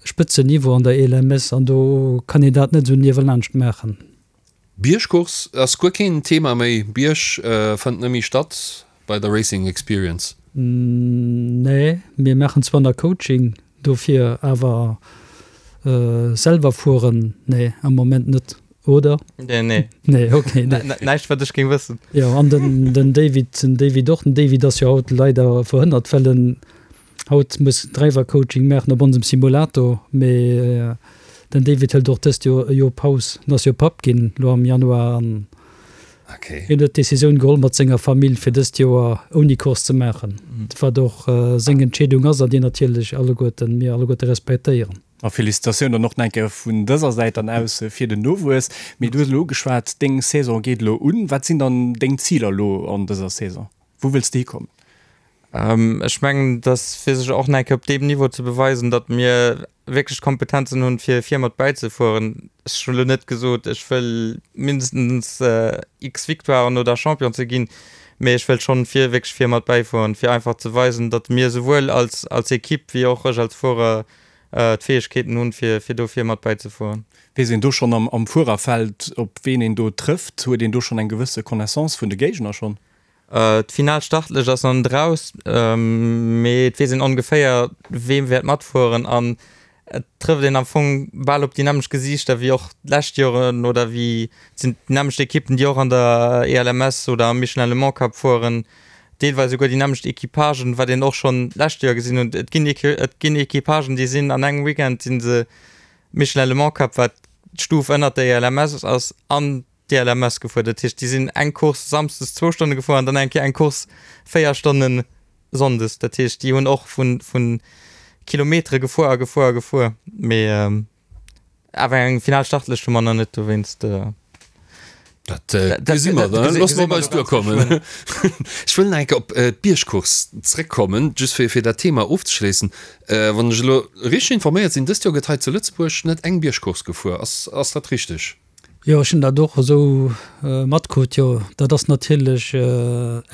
Spëtzenniveau an der ELMS an do kann een dat net esou niewelaanscht maachen. Biergcourse ass guer keen Thema méi. Bierg fënnt net méi statt bei der Racing Experience. Nee, mir maachen zwar nach Coaching dofir, awer selwer fueren, nee, am Moment net, oder? Nee, nee. Nee, okay, nee. Näischt wat ech géing wëssen. Jo, an den, den David, den David och. Den David ass jo haut leider verhënnert, well en Haut muss Driver Coaching maachen op onsem Simulator, mee den David hëlt och dëst Joer e Joer Paus. En ass jo Papp ginn lo am Januar an hien huet d'Decisioun geholl mat senger Famill fir dëst Joer ouni Course ze maachen, wat och seng Entscheedung ass an déi natierlech alleguerten mir alleguerte respektéieren. A Felicitatioun dann och nach eng Kéier vun dëser Säit dann aus fir den Nowuess. Mee du hues elo ugeschwat, deng Saison geet elo un. Wat sinn dann deng Ziler elo an dëser Saison? Wou wëlls de hikommen? Ech mengen, dass fir sech och nach eng Kéier op deem Niveau ze beweisen, datt mir wierklech d'Kompetenzen hunn, fir vir mat bäizefueren. Ech hunn elo net gesot, ech wëll mindestens x Victoiren oder Champion ze ginn, mee ech wëll schonn vir wierklech vir mat bäifueren, fir einfach ze weisen, datt mir souwuel als als Ekipp wéi och ech als Fuerer d'Fäegkeeten hunn, fir fir do vir mat bäizefueren. Weess een do schonn am am Fuererfeld, op ween een do trëfft? Huet een do schonn eng gewësse Connaissance vun de Géigner schonn? D'final Startlëscht ass nach net eraus, mee et weess een ongeféier, wee wäert matfueren an et trëfft een am Fong bal op déi nämmlecht Gesiichter wéi och d'lescht Joren oder wéi et sinn déi nämmlecht Ekippen, déi och an der ELMS oder am Michelin Le Mans Cup fueren, deelweis esouguer déi nämmlecht Equipagen, wat een och schonn d'lescht Joer gesinn hunn. Et ginn et ginn Equipagen, déi sinn an engem Weekend si se Michelin Le Mans Cup, wat d'Stuf ënnert der ELMS ass, an d'ELMS gefuer. Dat heescht, déi sinn eng Course samsdes zwou Stonne gefuer an dann eng Kéier eng Course 4 Stonne sonndes. Dat heescht, déi hunn och vu vu Kilometere gefuer a gefuer a gefuer. Mee awer eng final Startlëscht hu mer nach net, dowéinst. Dat gesi mer dann. Loosse mer op eis duerkommen. Ech wëll nach eng Kéier op d'Biergcourse zréckkommen, just fir fir dat Thema ofzeschléissen. Wann ech elo richteg informéiert sinn, dëst Joer gëtt hei zu Lëtzebuerg net eng Biergcourse gefuer. Ass ass dat richteg? Jo, ech hunn dat och esou matkrut. Jo, dat ass natierlech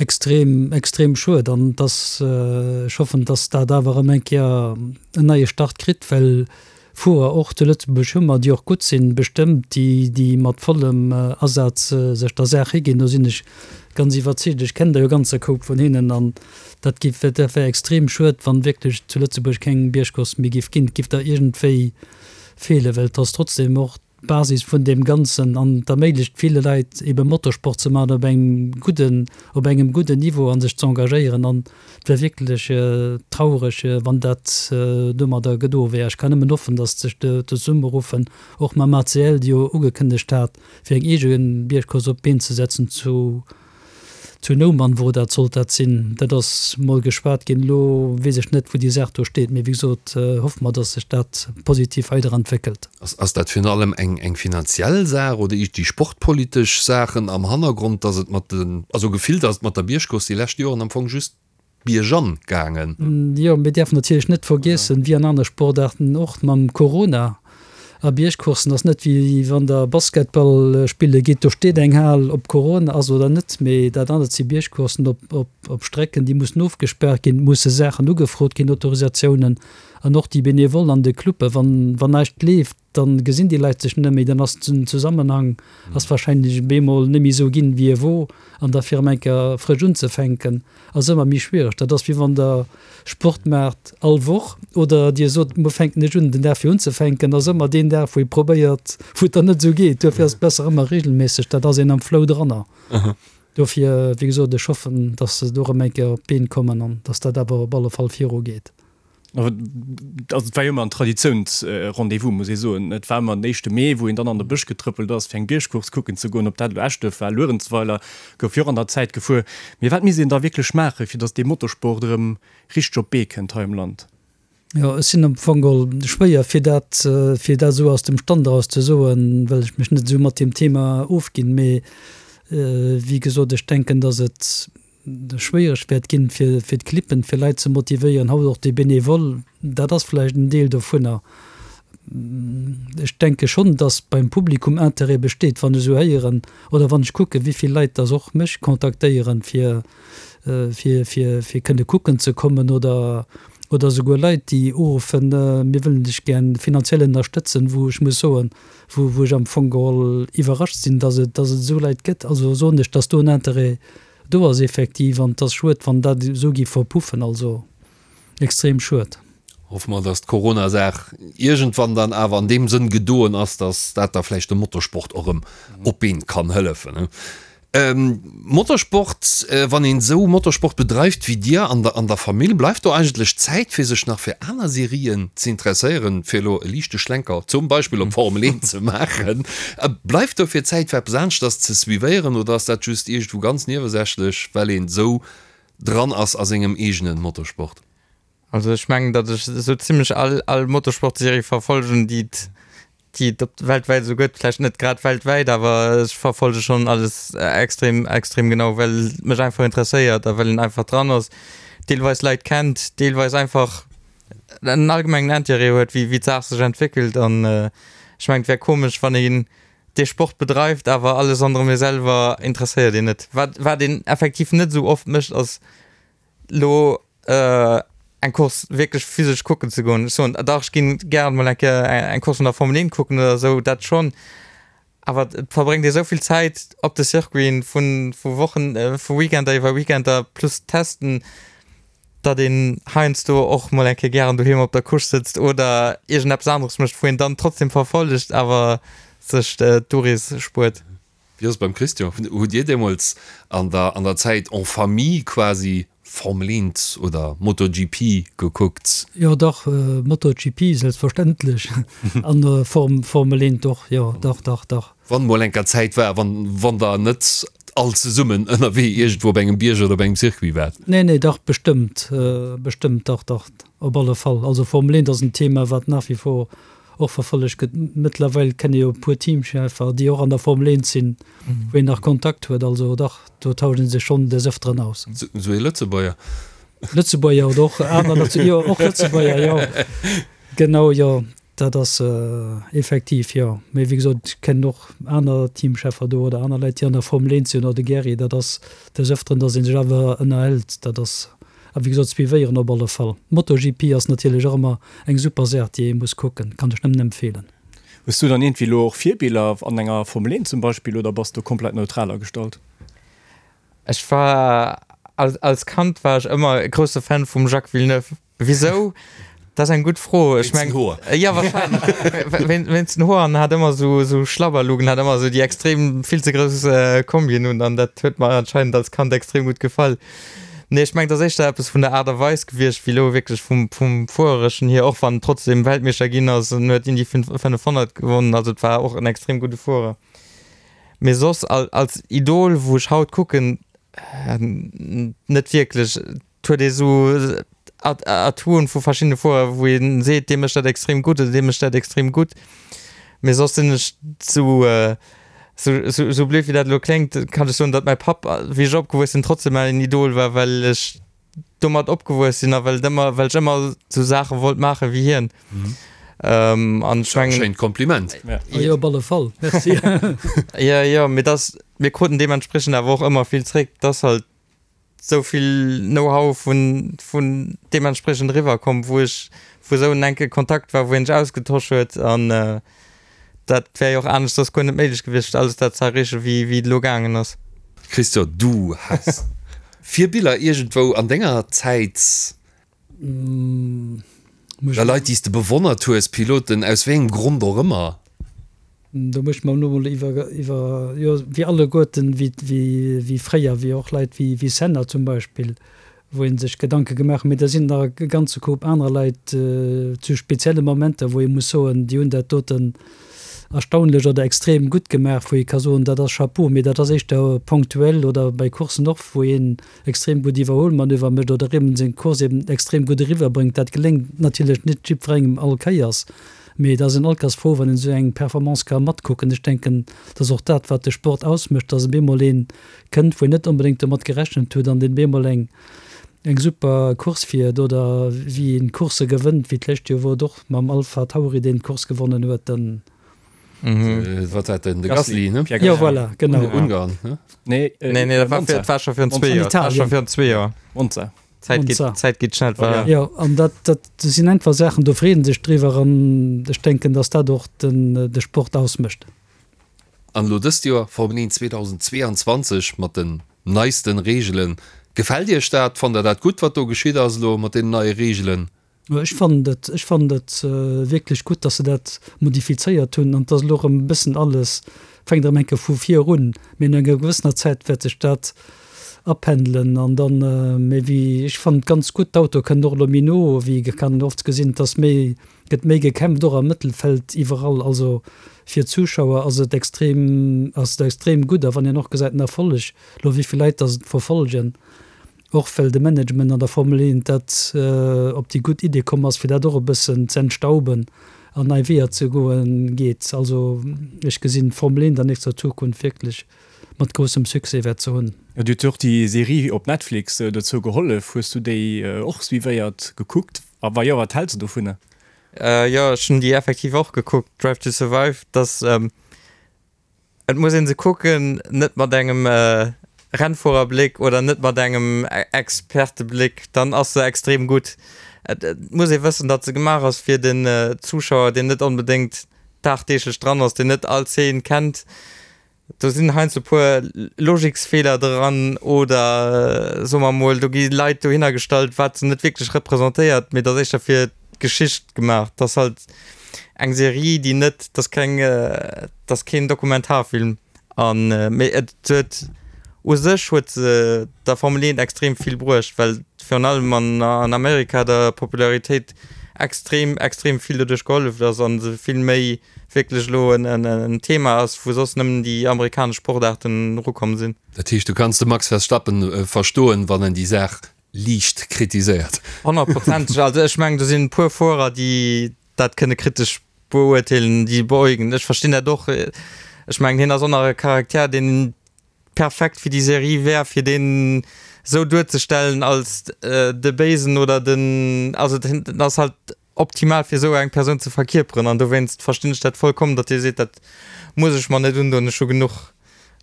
extrem, extrem schued. An et ass, ech hoffen, datt dat awer erëm eng Kéier en neie Start kritt, well Fuerer och zu Lëtzebuerg hu mer, déi och gutt sinn, bestëmmt, déi, déi mat vollem Asaz sech der Saach higinn. Do sinn ech ganz iwwerzeegt. Ech kennen der jo e ganze Koup vun hinnen. An dat giff, dat wär extrem schued, wann wierklech zu Lëtzebuerg keng Biergcourse méi giff ginn. Et giff der iergendwéi feelen, well et ass trotzdem och d'Basis vun deem Ganzen an et erméiglecht ville Leit ebe Motorsport ze maachen op engem gudden, op engem gudden Niveau a sech ze engagéieren. An et wär wierklech traureg, wann dat domadder gedo wär. Ech kann nëmmen hoffen, datt sech zesummeruffen, och mam ACL, déi jo ugekënnegt hat, fir eng eege Biergcourse op d'Been ze setzen zu Zu Noumann wor dat, sollt dat sinn. Dat ass mol geschwat ginn. Elo weess ech net, wou déi Saach do steet. Mee wéi gesot, hoffe mer, datt sech dat positiv weiderentwéckelt. Ass dat virun allem eng finanziell Saach oder déi sportpolitesch Saachen am Hannergrond, datt et mat den, also gefillt ass et mat der Biergcourse déi lescht Joren am Fong just biergan gaangen? Jo, mir däerfen natierlech net vergiessen, wéi an aner Sportaarten och, mam Corona a Biergcoursen ass net wéi wann der Basketball spille gitt, do steet eng Hal, ob Corona ass oder net. Mee dat anert si Biergcoursen op Strecken, déi mussen ofgespaart ginn, et musse Saachen ugefrot ginn, Autorisatiounen an och déi Benevollen an de Clubben, wann näischt leeft, dann gesinn déi Leit sech net méi, dann ass den Zusammenhang ass wahrscheinlech bemol net méi esou ginn wéi e wor an da fir erëm eng Kéier frësch unzefänken ass ëmmer méi schwiereg. Dat ass wéi wann der Sport maacht all Woch oder dir sot muer fänken ech un. Den Dag fir unzefänken ass ëmmer deen Dag wou ee probéiert wou et dann net esou geet. Duerfir ass et besser ëmmer regelméisseg, dat ass een am Flow dranner. Dofir wéi gesot ech hoffen, dass se do erëm eng Kéier op d'Been kommen an dass dat awer op alle Fall virugeet. Also et war jo ëmmer en Traditiounsrendez-vous, muss ee soen. Et war ëmmer den éischte Mee, wou een dann an de Bësch getrëppelt ass, fir eng Biergcourse kucken ze goen. Ob dat elo Eschduerf war, Luerenzweiler, gouf jo och an der Zäit gefuer. Mee wat misst een da wierklech maachen, fir datt dee Motorsport erëm richteg op d'Bee kënnt hei am Land? Jo, ech sinn am Fong geholl schwéier, fir dat, fir dat esou aus dem Stand eraus ze soen, well ech mech net esou mat deem Thema ofginn. Mee wéi gesot, ech denken, datt et schwéiereg wäert ginn, fir fir d'Clippen, fir Leit ze motivéieren, haut och déi Bénévole, dat ass vläicht en Deel dovunner. Ech denke schonn, datt beim Publikum Interêt besteet, wann ech esou héieren oder wann ech kucken, wéi vill Leit datt och mech kontaktéieren, fir fir fir fir kënne kucken ze kommen oder oder esouguer Leit, déi uruffen, mir wëllen dech gär finanziell ënnerstëtzen, wou ech muss soen, wou wou ech am Fong geholl iwwerrascht sinn, datt et datt et esou Leit gëtt. Also soen ech, datt do en Interêt Do ass effektiv, an et ass schued, wann dat esou géif verpuffen, also extrem schued. Hoffe mer, dass d'Corona-Saach iergendwann dann awer an deem Sënn gedoen ass, dass dat da vläicht dem Motorsport och erëm op d'Been kann hëllefen. Motorsport, wann een esou Motorsport bedreift wéi dir an der an der Famill, bleift do eigentlech Zäit fir sech nach fir aner Serien ze interesséieren, fir elo e liichte Schlenker zum Beispill op d'Formel 1 ze maachen? Bleift dofir Zäit fir eppes aneschters ze suivéieren oder ass dat just iergendwou ganz niewesächlech, well een esou dran ass a sengem eegene Motorsport? Also ech mengen, datt ech esou zimlech all all Motorsportserie verfolgen, déi et déi et op weltwäit esou gëtt. Vläicht net grad weltwäit, awer ech verfolge schonn alles extrem extrem genau, well et mech einfach interesséiert a well een einfach dran ass. deelweis Leit kennt, deelweis einfach en allgemengen Intérêt huet, wéi d'Saach sech entwéckelt. An ech mengen, et wär komesch, wann een dee Sport bedreift, awer alles ronderëm ee selwer interesséiert een net. Wat, wat een effektiv net esou oft mécht, ass lo eng Course wierklech physesch kucken ze goen. Ech soen, dach, ech ginn gären mol eng Kéier eng Course vun der Formel 1 kucken oder esou, dat schonn. Awer et verbréngt ee esou vill Zäit op de Circuiten, vu, vu Wochen, vu Weekender iwwer Weekender plus Testen, datt een heiansdo och mol eng Kéier gären doheem op der Couche sëtzt oder iergendeppes aneres mécht, wou een dann trotzdem verfollegt, awer sech d'Urees spuert. Wéi ass et beim Christian? Hutt Dir deemools an der an der Zäit en famille quasi Formel 1 oder MotoGP gekuckt? Jo dach, MotoGP selbstverständlech an Formel 1 och, jo dach, dach, dach. Wann mol enker Zäit war, wann wann der net all zesummen ënnerwee iergendwou op engem Bierg oder op engem Circuit waart. Nee, nee, dach bestëmmt, bestëmmt, dach, dach, op alle Fall. Also Formel 1 ass en Thema, wat nach wie vor och verfollegt gëtt. Mëttlerweil kenne jo e puer Teamcheffer, déi och an der Formel 1 sinn, wou een nach Kontakt huet. Also dach, do tauscht ee sech schonn des Ëfteren aus. Sou ee Lëtzebuerger? Lëtzebuerger oder och aner, jo, och Lëtzebuerger, jo, genau, jo. Dat ass effektiv, jo. Mee wéi gesot, ech kennen och aner Teamcheffer do oder aner Leit, déi an der Formel 1 sinn oder de Gary. Dat ass des Ëfteren, datt ee sech awer ënnerhält. Dat ass, a wéi gesot, suivéieren op alle Fall. MotoGP ass natierlech och ëmmer eng super Saach, déi ee muss kucken. Kann ech nëmmen empfeelen. Hues du dann iergendwéi elo och Virbiller an enger Formel 1 zum Beispill oder bass du komplett neutral agestallt? Ech war, als Kand war ech ëmmer e grousse Fan vum Jacques Villeneuve. Wisou? Dat ass eng gutt Fro. Ech meng, jo wahrscheinlech wéinst den Hoer an hat ëmmer esou esou Schlabberlugen, hat ëmmer esou déi extrem vill ze grouss Kombien un an dat huet mer anscheinend als Kand extrem gutt gefall. Nee ech meng et ass éischter eppes vun der Aart a Weis gewiescht wéi elo wierklech vum vum Fuerereschen hier, och wann en trotzdem Weltmeeschter ginn ass en huet Indy 500 gewonnen, also et war och en extrem gudde Fuerer. Mee soss als Idol wou ech haut kucken, net wierklech. Et huet ee sou Atouen vu verschiddene Fuerer, wou ee seet, dee mécht dat extrem gutt oder dee mécht dat extrem gutt. Mee soss sinn ech sou, sou blöd wéi dat elo kléngt, kann ech soen, datt mäi Papp, wéi ech opgewuess sinn, trotzdem mäin Idol war, well ech domat opgewuess sinn a well et ëmmer, well ech ëmmer sou Saache wollt maache wéi hien. An ech mengen. Schéint Kompliment. Jo, op alle Fall. Merci. Jo, jo, mee dass, mir kruten deementspriechend awer och ëmmer vill zréck. 't ass halt sou vill Know-how vun, vun deementspriechend eriwwer komm, wou ech, wou esou en enke Kontakt war, wou een sech ausgetosch huet an dat wär jo och anescht soss guer net méiglech gewiescht, alles dat ze erreechen, wéi, wéi et elo gaangen ass. Christian, du has Virbiller iergendwou an denger Zäit? Oder Leit, déi s de bewonnert hues, Piloten, aus wéi engem Grond och ëmmer? Do muss ech mer elo mol iwwer, iwwer, jo, wéi alleguerten, wéi, wéi, wéi fréier, wéi och Leit wéi, wéi Senna zum Beispill, wou ee sech Gedanke gemaach huet. Mee da sinn nach e ganze Koup anerer Leit zu spezielle Momenter, wou ee muss soen, déi hunn dat doten erstaunlech oder extrem gutt gemaach, wou ee ka soen, dat ass Chapeau. Mee dat ass éischter ponktuell oder bei Courssen och, wou een extrem gutt Iwwerholmanöver mécht oder eben seng Course eben extrem gutt eriwwer bréngt. Dat geléngt natierlech net jiddwerengem all Kéiers, mee et ass een all Kéiers frou, wann een esou eng Performance ka matkucken. Ech denken, dat ass och dat, wat de Sport ausmécht, dass op eemol een kënnt, wou een net onbedéngt domat gerechent huet an deen op eemol eng eng super Course fiert oder wéi een Coursse gewënnt, wéi d'lescht Joer wor et och mam Alpha Tauri, deen d'Course gewonnen huet. Den. Wat war den de Gasly ne? Jo voilà, genau. Ungarn ne? Nee, nee, nee, dat war fir, war scho virun zwee Joer. War scho virun zwee Joer. Monza. Zäit geet, Zäit geet schnell. War. Jo, an dat, dat sinn einfach Saachen, do freet een sech driwwer an ech denken, datt dat och den, de Sport ausmécht. An elo dëst Joer Formel 1 2022 mat den neisten Reegelen. Gefält Iech dat? Fannt der dat gutt, wat do geschitt ass elo mat deenen neie Reegelen? Ech fannen et, ech fannen et wierklech gutt, dass se dat modifizéiert hunn an dass elo erëm e bëssen alles fänkt erëm eng Kéier vu vir un. Mee no enger gewëssener Zäit wäert sech dat apendelen an dann, mee wéi, ech fannen et ganz gutt, d'Autoe kënnen och elo méi no, wéi kann een oft gesinn, dass méi, gëtt méi gekämpft och am Mëttelfeld iwwerall. Also fir d'Zuschauer ass et extrem, ass et extrem gutt a wann een och gesäit den Erfolleg elo, wéi vill Leit dass et verfollegen, Och well de Management an der Formel 1 dat op déi gutt Idee komm ass, fir dat och e bëssen z'entstauben an nei Weeër ze goen, geet. Also ech gesinn d'Formel 1 an nächster Zukunft wierklech. mat groussem Succès wäert ze hunn. Jo, dir huet jo och déi Serie op Netflix dozou gehollef. Hues du déi och suivéiert, gekuckt? A wa jo, wat häls de dovunner? Jo, ech hunn déi effektiv och gekuckt, Drive to Survive. Dass, et muss ee se kucken, net mat engem Rennfuererbléck oder net mat engem Expertebléck, dann ass se extrem gutt. Et muss ee wëssen, datt se gemaach ass fir den Zuschauer, deen net onbedéngt dagdeeglech dran ass, deen net all Zeen kennt. Do sinn heiansdo e puer Logiksfeeler dran oder soe mer emol, do gi Leit dohinner gestallt, wat se net wierklech representéiert, mee et ass éischter fir d'Geschicht gemaach. Et ass halt eng Serie, déi net, et ass keng, et ass keen Dokumentarfilm an, mee et huet u sech huet se der Formel 1 extrem vill bruecht, well virun allem an an Amerika der Popularitéit extrem, extrem vill doduerch gehollef ass an se vill méi wierklech elo en Thema ass, wou soss nëmmen déi amerikanesch Sportaarten erukomm sinn. Dat heescht, du kanns de Max Verstappen verstoen, wann en déi Saach liicht kritiséiert? Honnertprozenteg. Also ech mengen, do sinn e puer Fuerer, déi dat kënne kritesch beurteelen, déi beäugen. Ech verstinn dat och. Ech mengen, hien ass och nach e Charakter, deen perfekt fir déi Serie wär, fir deen esou duerzestellen als de Béisen oder den, also den ass halt optimal fir esou eng Persoun ze verkierperen an dowéinst verstinn ech dat vollkommen, datt Dir seet, dat muss ech mer net undoen, ech hu genuch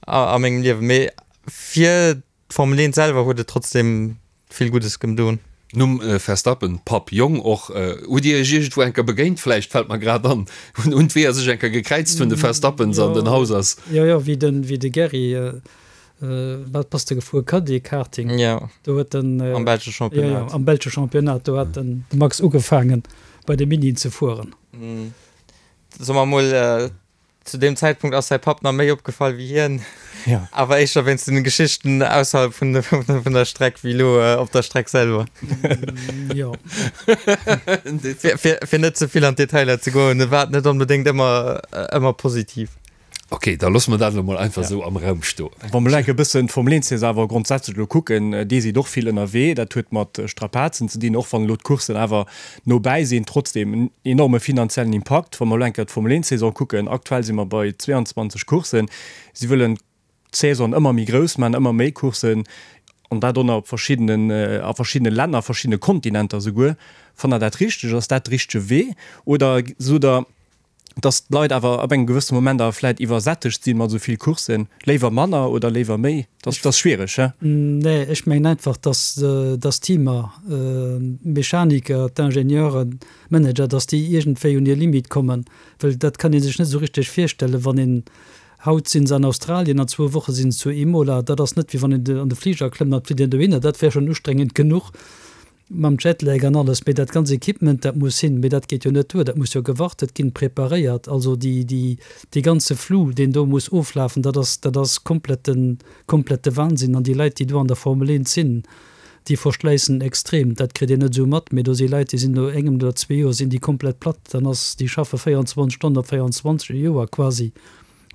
a mengem Liewen. Mee fir d'Formel 1 selwer huet et trotzdem vill Guddes gemdoen. Numm Verstappen, Papp, Jong och. Hutt Dir Iech iergendwou eng Kéier begéint vläicht, fält mer grad an? Hunn d'Weeër sech eng Kéier gekräizt vun de Verstappens an den Hausers? Jo, jo, wéi de Gerry Wat bass de gefuer? Caddy Karting? Jo. Do huet den. Am belsche Championnat. Jo, jo, am belsche Championnat. Do hat den Max ugefaangen, bei de Minien ze fueren. Soe mer mol, zu deem Zäitpunkt ass säi Papp nach méi opgefall wéi hien. Jo. Awer éischter wéinst den Geschichten ausserhalb vun vun der Streck wéi elo op der Streck selwer. Jo. Fir, fir, fir net ze vill an d'Detailer ze goen, e war net onbedéngt ëmmer, ëmmer positiv. Ok, da loosse mer dat elo mol einfach esou am Raum stoen. Wa mer elo enk e bëssen d'Formel 1 Saison awer grondsätzlech elo kucken, dir sidd och vill ënnerwee, dat huet mat Strapazen ze dinn, och wann elo d'Courssen awer no bäi sinn, trotzdem en enorme finanziellen Impakt. Wa mer elo enk d'Formel 1 Saison kucken, aktuell si mer bei 22 Courssen, si wëllen d'Saison ëmmer méi grouss maachen, ëmmer méi Courssen an dat och nach op verschiddenen, a verschiddene Länner, a verschiddene Kontinenter souguer. Fannt Der dat richteg? Ass dat de richtege Wee oder sot Der, dass d'Leit awer ab engem gewëssene Moment awer vläit iwwersättegt sinn mat esou vill Courssen, léiwer manner oder léiwer méi? Dat ass schwiereg, he? Nee, ech mengen einfach, dass dass d'Teamer, d'Mechaniker, d'Ingenieuren, d'Manager, dass déi iergendwéi un hir Limite kommen, well dat kann ee sech net esou richteg virstellen, wann een, haut sinn se an Australien, an zwou Woche sinn se zu Imola, dat ass net wéi wann een an de Fliger klëmmt an et flitt een dohinner, dat wär schonn ustrengend genuch. Mam Jetlag an alles, mee dat ganz Equipement, dat muss hin, mee dat geet jo net duer, dat muss jo gewartet ginn, preparéiert, also déi, déi, dee ganze Flou, deen do muss oflafen, dat ass, dat ass kompletten, komplette Wahnsinn. An déi Leit, déi do an der Formel 1 sinn, déi verschläissen extrem, dat kritt een net esou mat, mee do si Leit, déi sinn no engem oder zwee Joer sinn déi komplett platt, dann ass, déi schaffe 24 Stonnen op 24, e Joer quasi.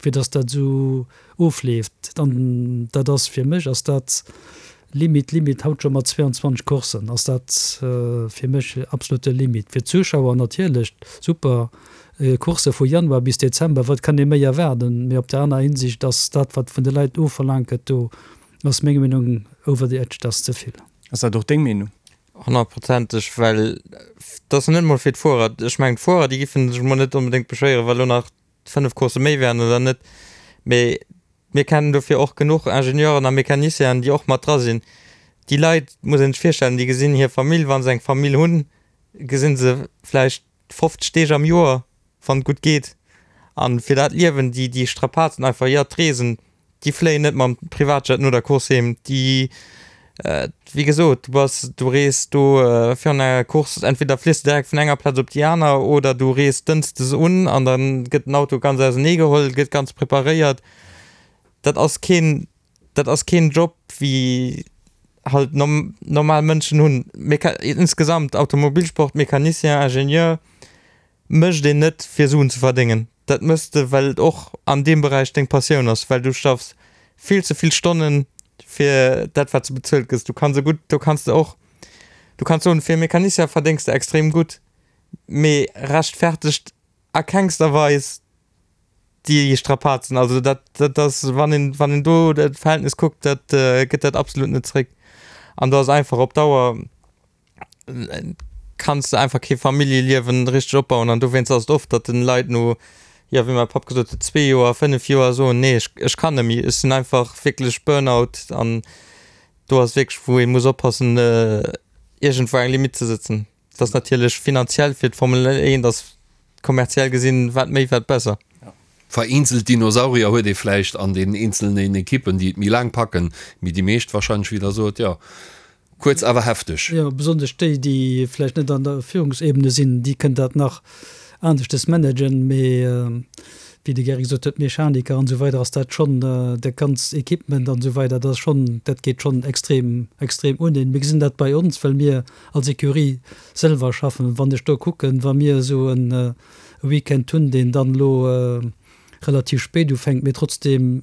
fir dass dat esou ofleeft. An dat ass fir mech ass dat Limite, Limite, haut scho mat 22 Courssen ass dat fir mech absolute Limite. Fir d'Zuschauer natierlech super, Coursse vu Januar bis Dezember, wat kann ee méi erwaarden? Mee op der aner Hinsicht ass dat, wat vun de Leit ofverlaangt gëtt, do ass meng Meenung over the edge, dat ass ze vill. Ass dat och deng Meenung? Honnertprozenteg, well dat ass net emol fir d'Fuerer. Ech mengen, d'Fuerer, déi giffen sech emol net onbedéngt beschwéieren, wa lo nach 5 Coursse méi wären oder net, mee mir kennen dofir och genuch Ingenieuren a Mécanicienen, déi och mat dra sinn. Déi Leit, muss een sech virstellen, déi gesinn hir Famill, wa se eng Famill hunn, gesinn se vläicht 50 Deeg am Joer, wann et gutt geet. A fir dat Liewen, déi, déi Strapazen einfach, jo, d'Reesen, Déi fléien net mam Privatjet no der Course heem. Déi, wéi gesot, du bass, du rees do virun enger Course, entweder fliss de direkt vun enger Plaz op déi aner oder du rees dënschdes un an da gëtt den Auto ganz ausenee geholl, gëtt ganz preparéiert. Dat ass keen, dat ass keen Job wéi halt normal Mënschen hunn. Meca, insgesamt Automobilsport, Mecanicien, Ingenieur, mécht een net fir Suen ze verdéngen, dat mëss de well et och an deem Beräich deng Passioun ass, well du schaffs vill ze vill Stonnen fir dat wat s de bezuelt gëss. Du kanns e gutt, do kanns de och, du kanns soen fir e Mecanicien verdéngs de extrem gutt, mee rechtfertegt a kengster Weis. Déi Strapazen, also dat, dat ass, wann een, wann een do dat Verhältnis kuckt, dat gëtt dat absolut net zréck. An do ass einfach op Dauer kanns de einfach kee Familljeliewen richteg opbauen an dowéinst ass et oft, datt den Leit no, jo wéi mäi Papp gesot huet, zwee Joer, fënnef Joer soen, nee ech, ech kann net méi, ech sinn einfach wierklech Burnout an do ass wierklech wou ee muss oppassen iergendwou eng Limitt ze sëtzen. Et ass natierlech finanziell fir d'Formel 1 ass kommerziell gesinn wat méi wat besser. Vereenzelt Dinosaurier huet ee vläicht an den eenzelnen Ekippen, déi et méi laang packen, mee déi meescht wahrscheinlech, wéi Der sot, jo, kuerz awer hefteg. Jo, besonnesch déi, déi vläicht net an der Führungsebene sinn, déi kënnen dat nach aneschtes managen, mee wéi de Gerry gesot huet, Mechaniker an esou weider ass dat schonn, dat ganzt Equipement an esou weider, dat ass schonn, dat geet schonn extrem, extrem un een. Mir gesinn dat bei ons, well mir als Ecurie selwer schaffen. Wann ech do kucken, wa mir esou e Weekend hunn, deen dann elo relativ spéit ufänkt, mee trotzdeem,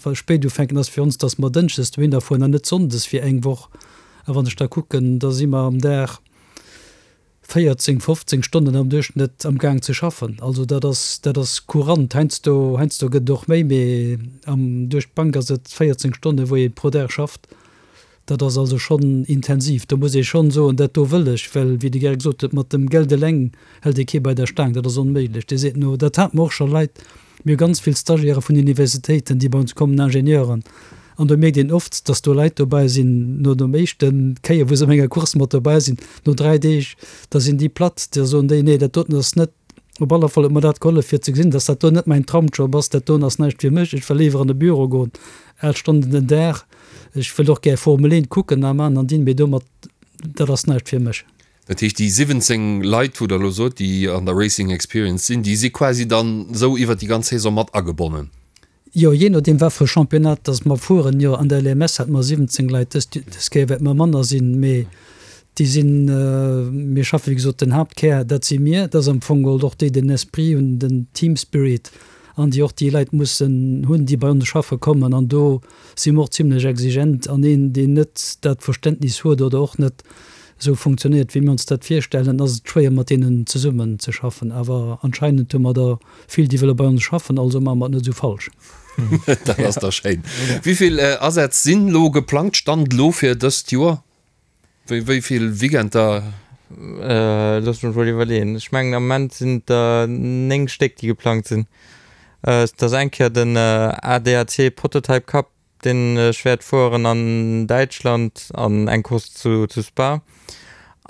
well spéit ufänken ass fir ons, dass mer dënschdes dohinner fueren an net sonndes fir eng Woch. A wann ech da kucken, da si mer am Dag 14, 15 Stonnen am Duerchschnëtt am Gaang ze schaffen. Also dat ass, dat ass courant. Heiansdo, heiansdo gëtt et och méi, mee am, duerch d'Bank ass et 14 Stonnen, wou ee pro Dag schafft. Dat ass also schonn intensiv. Do muss ee schonn soen, dat do wëll ech, well, wéi de Gerrit gesot huet, mat dem Geld eleng hält ee kee bei der Staang, dat ass onméiglech. Dir seet no, dat hate mer och scho Leit, mir hu ganz vill Stagiaire vun Universitéiten, déi bei ons kommen, Ingenieuren, an do mierkt een oft, datt do Leit dobäi sinn, no dem éischte Kéier, wou se op enger Course mat dobäi sinn, no 3 Deeg, da sinn déi platt, da soen déi, nee, dat doten ass net, op alle Fall huet mer dat gehollef fir ze gesinn, datt dat do net mäin Tramjob ass, dat doen ass näischt fir mech, ech wëll léiwer an e Büro goen, 8 Stonnen den Dag. Ech wëll och gär Formel 1 kucken a man an dinn, mee domat, dat ass näischt fir mech. Dat heescht, déi 17 Leit, wou Der elo sot, déi an der Racing Experience sinn, déi si quasi dann esou iwwert déi ganz Saison mat agebonnen? Jo, jee nodeem wat fir e Championnat dass mer fueren. Jo, an der LMS hate mer 17 Leit, dës dës Kéier wäerte mer manner sinn, mee déi sinn, mir schaffen, wéi gesot, den Haaptkär, dat si mir, dat ass am Fong geholl och déi den Esprit hunn, den Team Spirit an déi och déi Leit mussen hunn, déi bei ons schaffe kommen an do si mer och zimlech exigent an een, deen net dat Verständnis huet oder och net esou funktionéiert, wéi mir ons dat virstellen, ass et schwéier mat deenen zesummen ze schaffen. Awer anscheinend hu mer der vill, déi wëlle bei ons schaffen, also maache mer et net esou falsch. Dat ass da schéin. Wéi vill Asätz sinn elo geplangt, Stand elo fir dëst Joer? Wéi vill Weekender? Looss mech mol iwwerleeën. Ech mengen am Moment sinn et der 9 Stéck déi geplangt sinn. Et ass eng Kéier den ADAC Prototype Cup deen ech wäert fueren an Däitschland an eng Course zu zu Spa.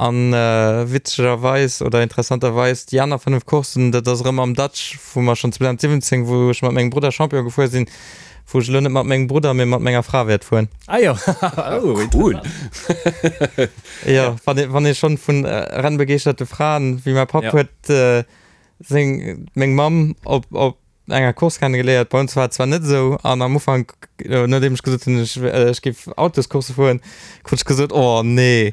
An witzegerweis oder interessanterweis déi aner 5 Courssen, dat ass erëm am Dutch wou mer schonn 2017 wou ech mat mengem Brudder Champion gefuer sinn, wou ech elo net mat mengem Brudder, mee mat menger Fra wäert fueren. Ah jo, oh cool. Jo, wann ee wann ee schonn vun rennbegeeschterte Fraen, wéi mäi Papp huet seng meng Mamm op op enger Course kennegeléiert. Bei ons war et zwar net esou an am Ufank, nodeem ech gesot hunn, ech ech géif Autoscoursse fueren, krut ech gesot, oh nee.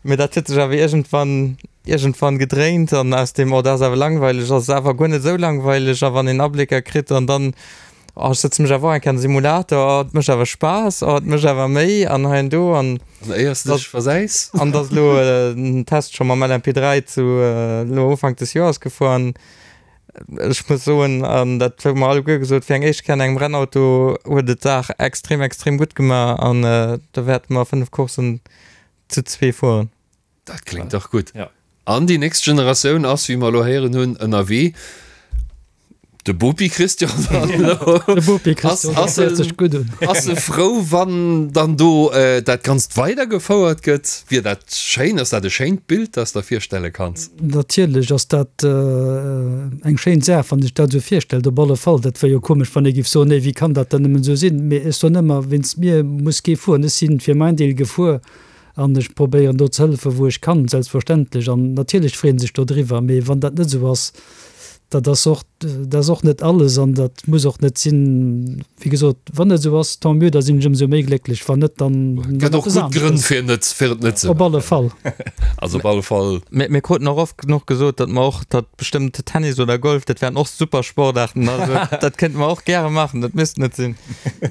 Mee dat huet sech awer iergendwann iergendwann gedréint an aus deem, oh dat ass awer langweileg, ass et awer guer net esou langweileg a wann een Ablécker kritt an dann, oh ech sëtze mech awer och eng Kéier an de Simulator, oh et mécht awer Spaass, oh et mécht awer méi an hei an do an. An éiers de dech versäis. An et ass elo en Test scho mam LMP3 zu elo Ufank des Joers gefuer an ech muss soen, an dat hu mer alleguer gesot, fir eng éischt Kéier an engem Rennauto huet et d'Saach extrem extrem gutt gemaach an do wäerte mer 5 Courssen zu zwee fueren. Dat kléngt dach gutt. An déi nächst Generatioun ass, wéi mer elo héieren hunn, ënnerwee. De Bopi Christian dann elo. De Bopi Christian, dat héiert sech gutt un. Ass e frou, wann dann do dat Ganzt weidergefouert gëtt? Wier dat schéin? Ass dat e schéint Bild, dat s der virstelle kanns? Natierlech ass dat eng schéin Saach, wann ee sech dat esou virstellt. Op alle Fall. Dat wär jo komesch, wann ee géif soen, Nee, wéi kann dat dann nëmmen esou sinn? Mee ech soen ëmmer, Wéinst mir muss kee fueren. Ech si fir mäin Deel gefuer. An ech probéieren do ze hëllefen, wou ech kann, selbstverständlech. An natierlech freeën sech dodriwwer. Mee wann dat net esou ass, dat ass och, dat ass och net alles an dat muss och net sinn. Wéi gesot, wann et esou ass, tant mieux, da sinn ech ëmsou méi glécklech. Wann net, dann Et gëtt och gutt Grënn, fir net, fir et net ze Op alle Fall. Also op alle Fall. Mir, mir kruten och oft genuch gesot, datt mer och, datt bestëmmt Tennis oder Golf, dat wären och super Sportaarten. Also dat kéinte mer och gäre maachen, dat misst net sinn.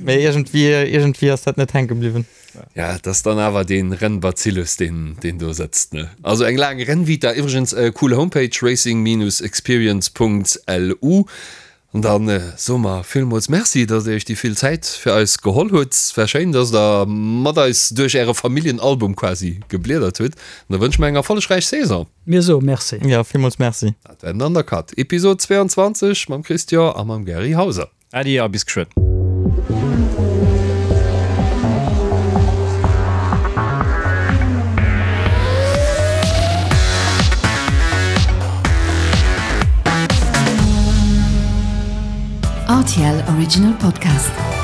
Mee iergendwéi, iergendwéi ass dat net hänke bliwwen. Ja, et ass dann awer dee Rennbazillus, deen, deen do sëtzt, ne? Also eng laang Rennvita. Iwwregens, cool Homepage, racing-experience.lu. An da soe mer villmools Merci, dass Dir Iech déi vill Zäit fir eis geholl hutt. Et war schéin, dass Der mat eis duerch Äre Familljenalbum quasi gebliedert hutt. An da wënsche mer eng erfollegräich Saison. Mir soe Merci. Jo, villmools Merci. Dat war den Undercut, Episod 22 mam Christian a mam Gary Hauser. Äddi a bis geschwënn. RTL Original Podcast.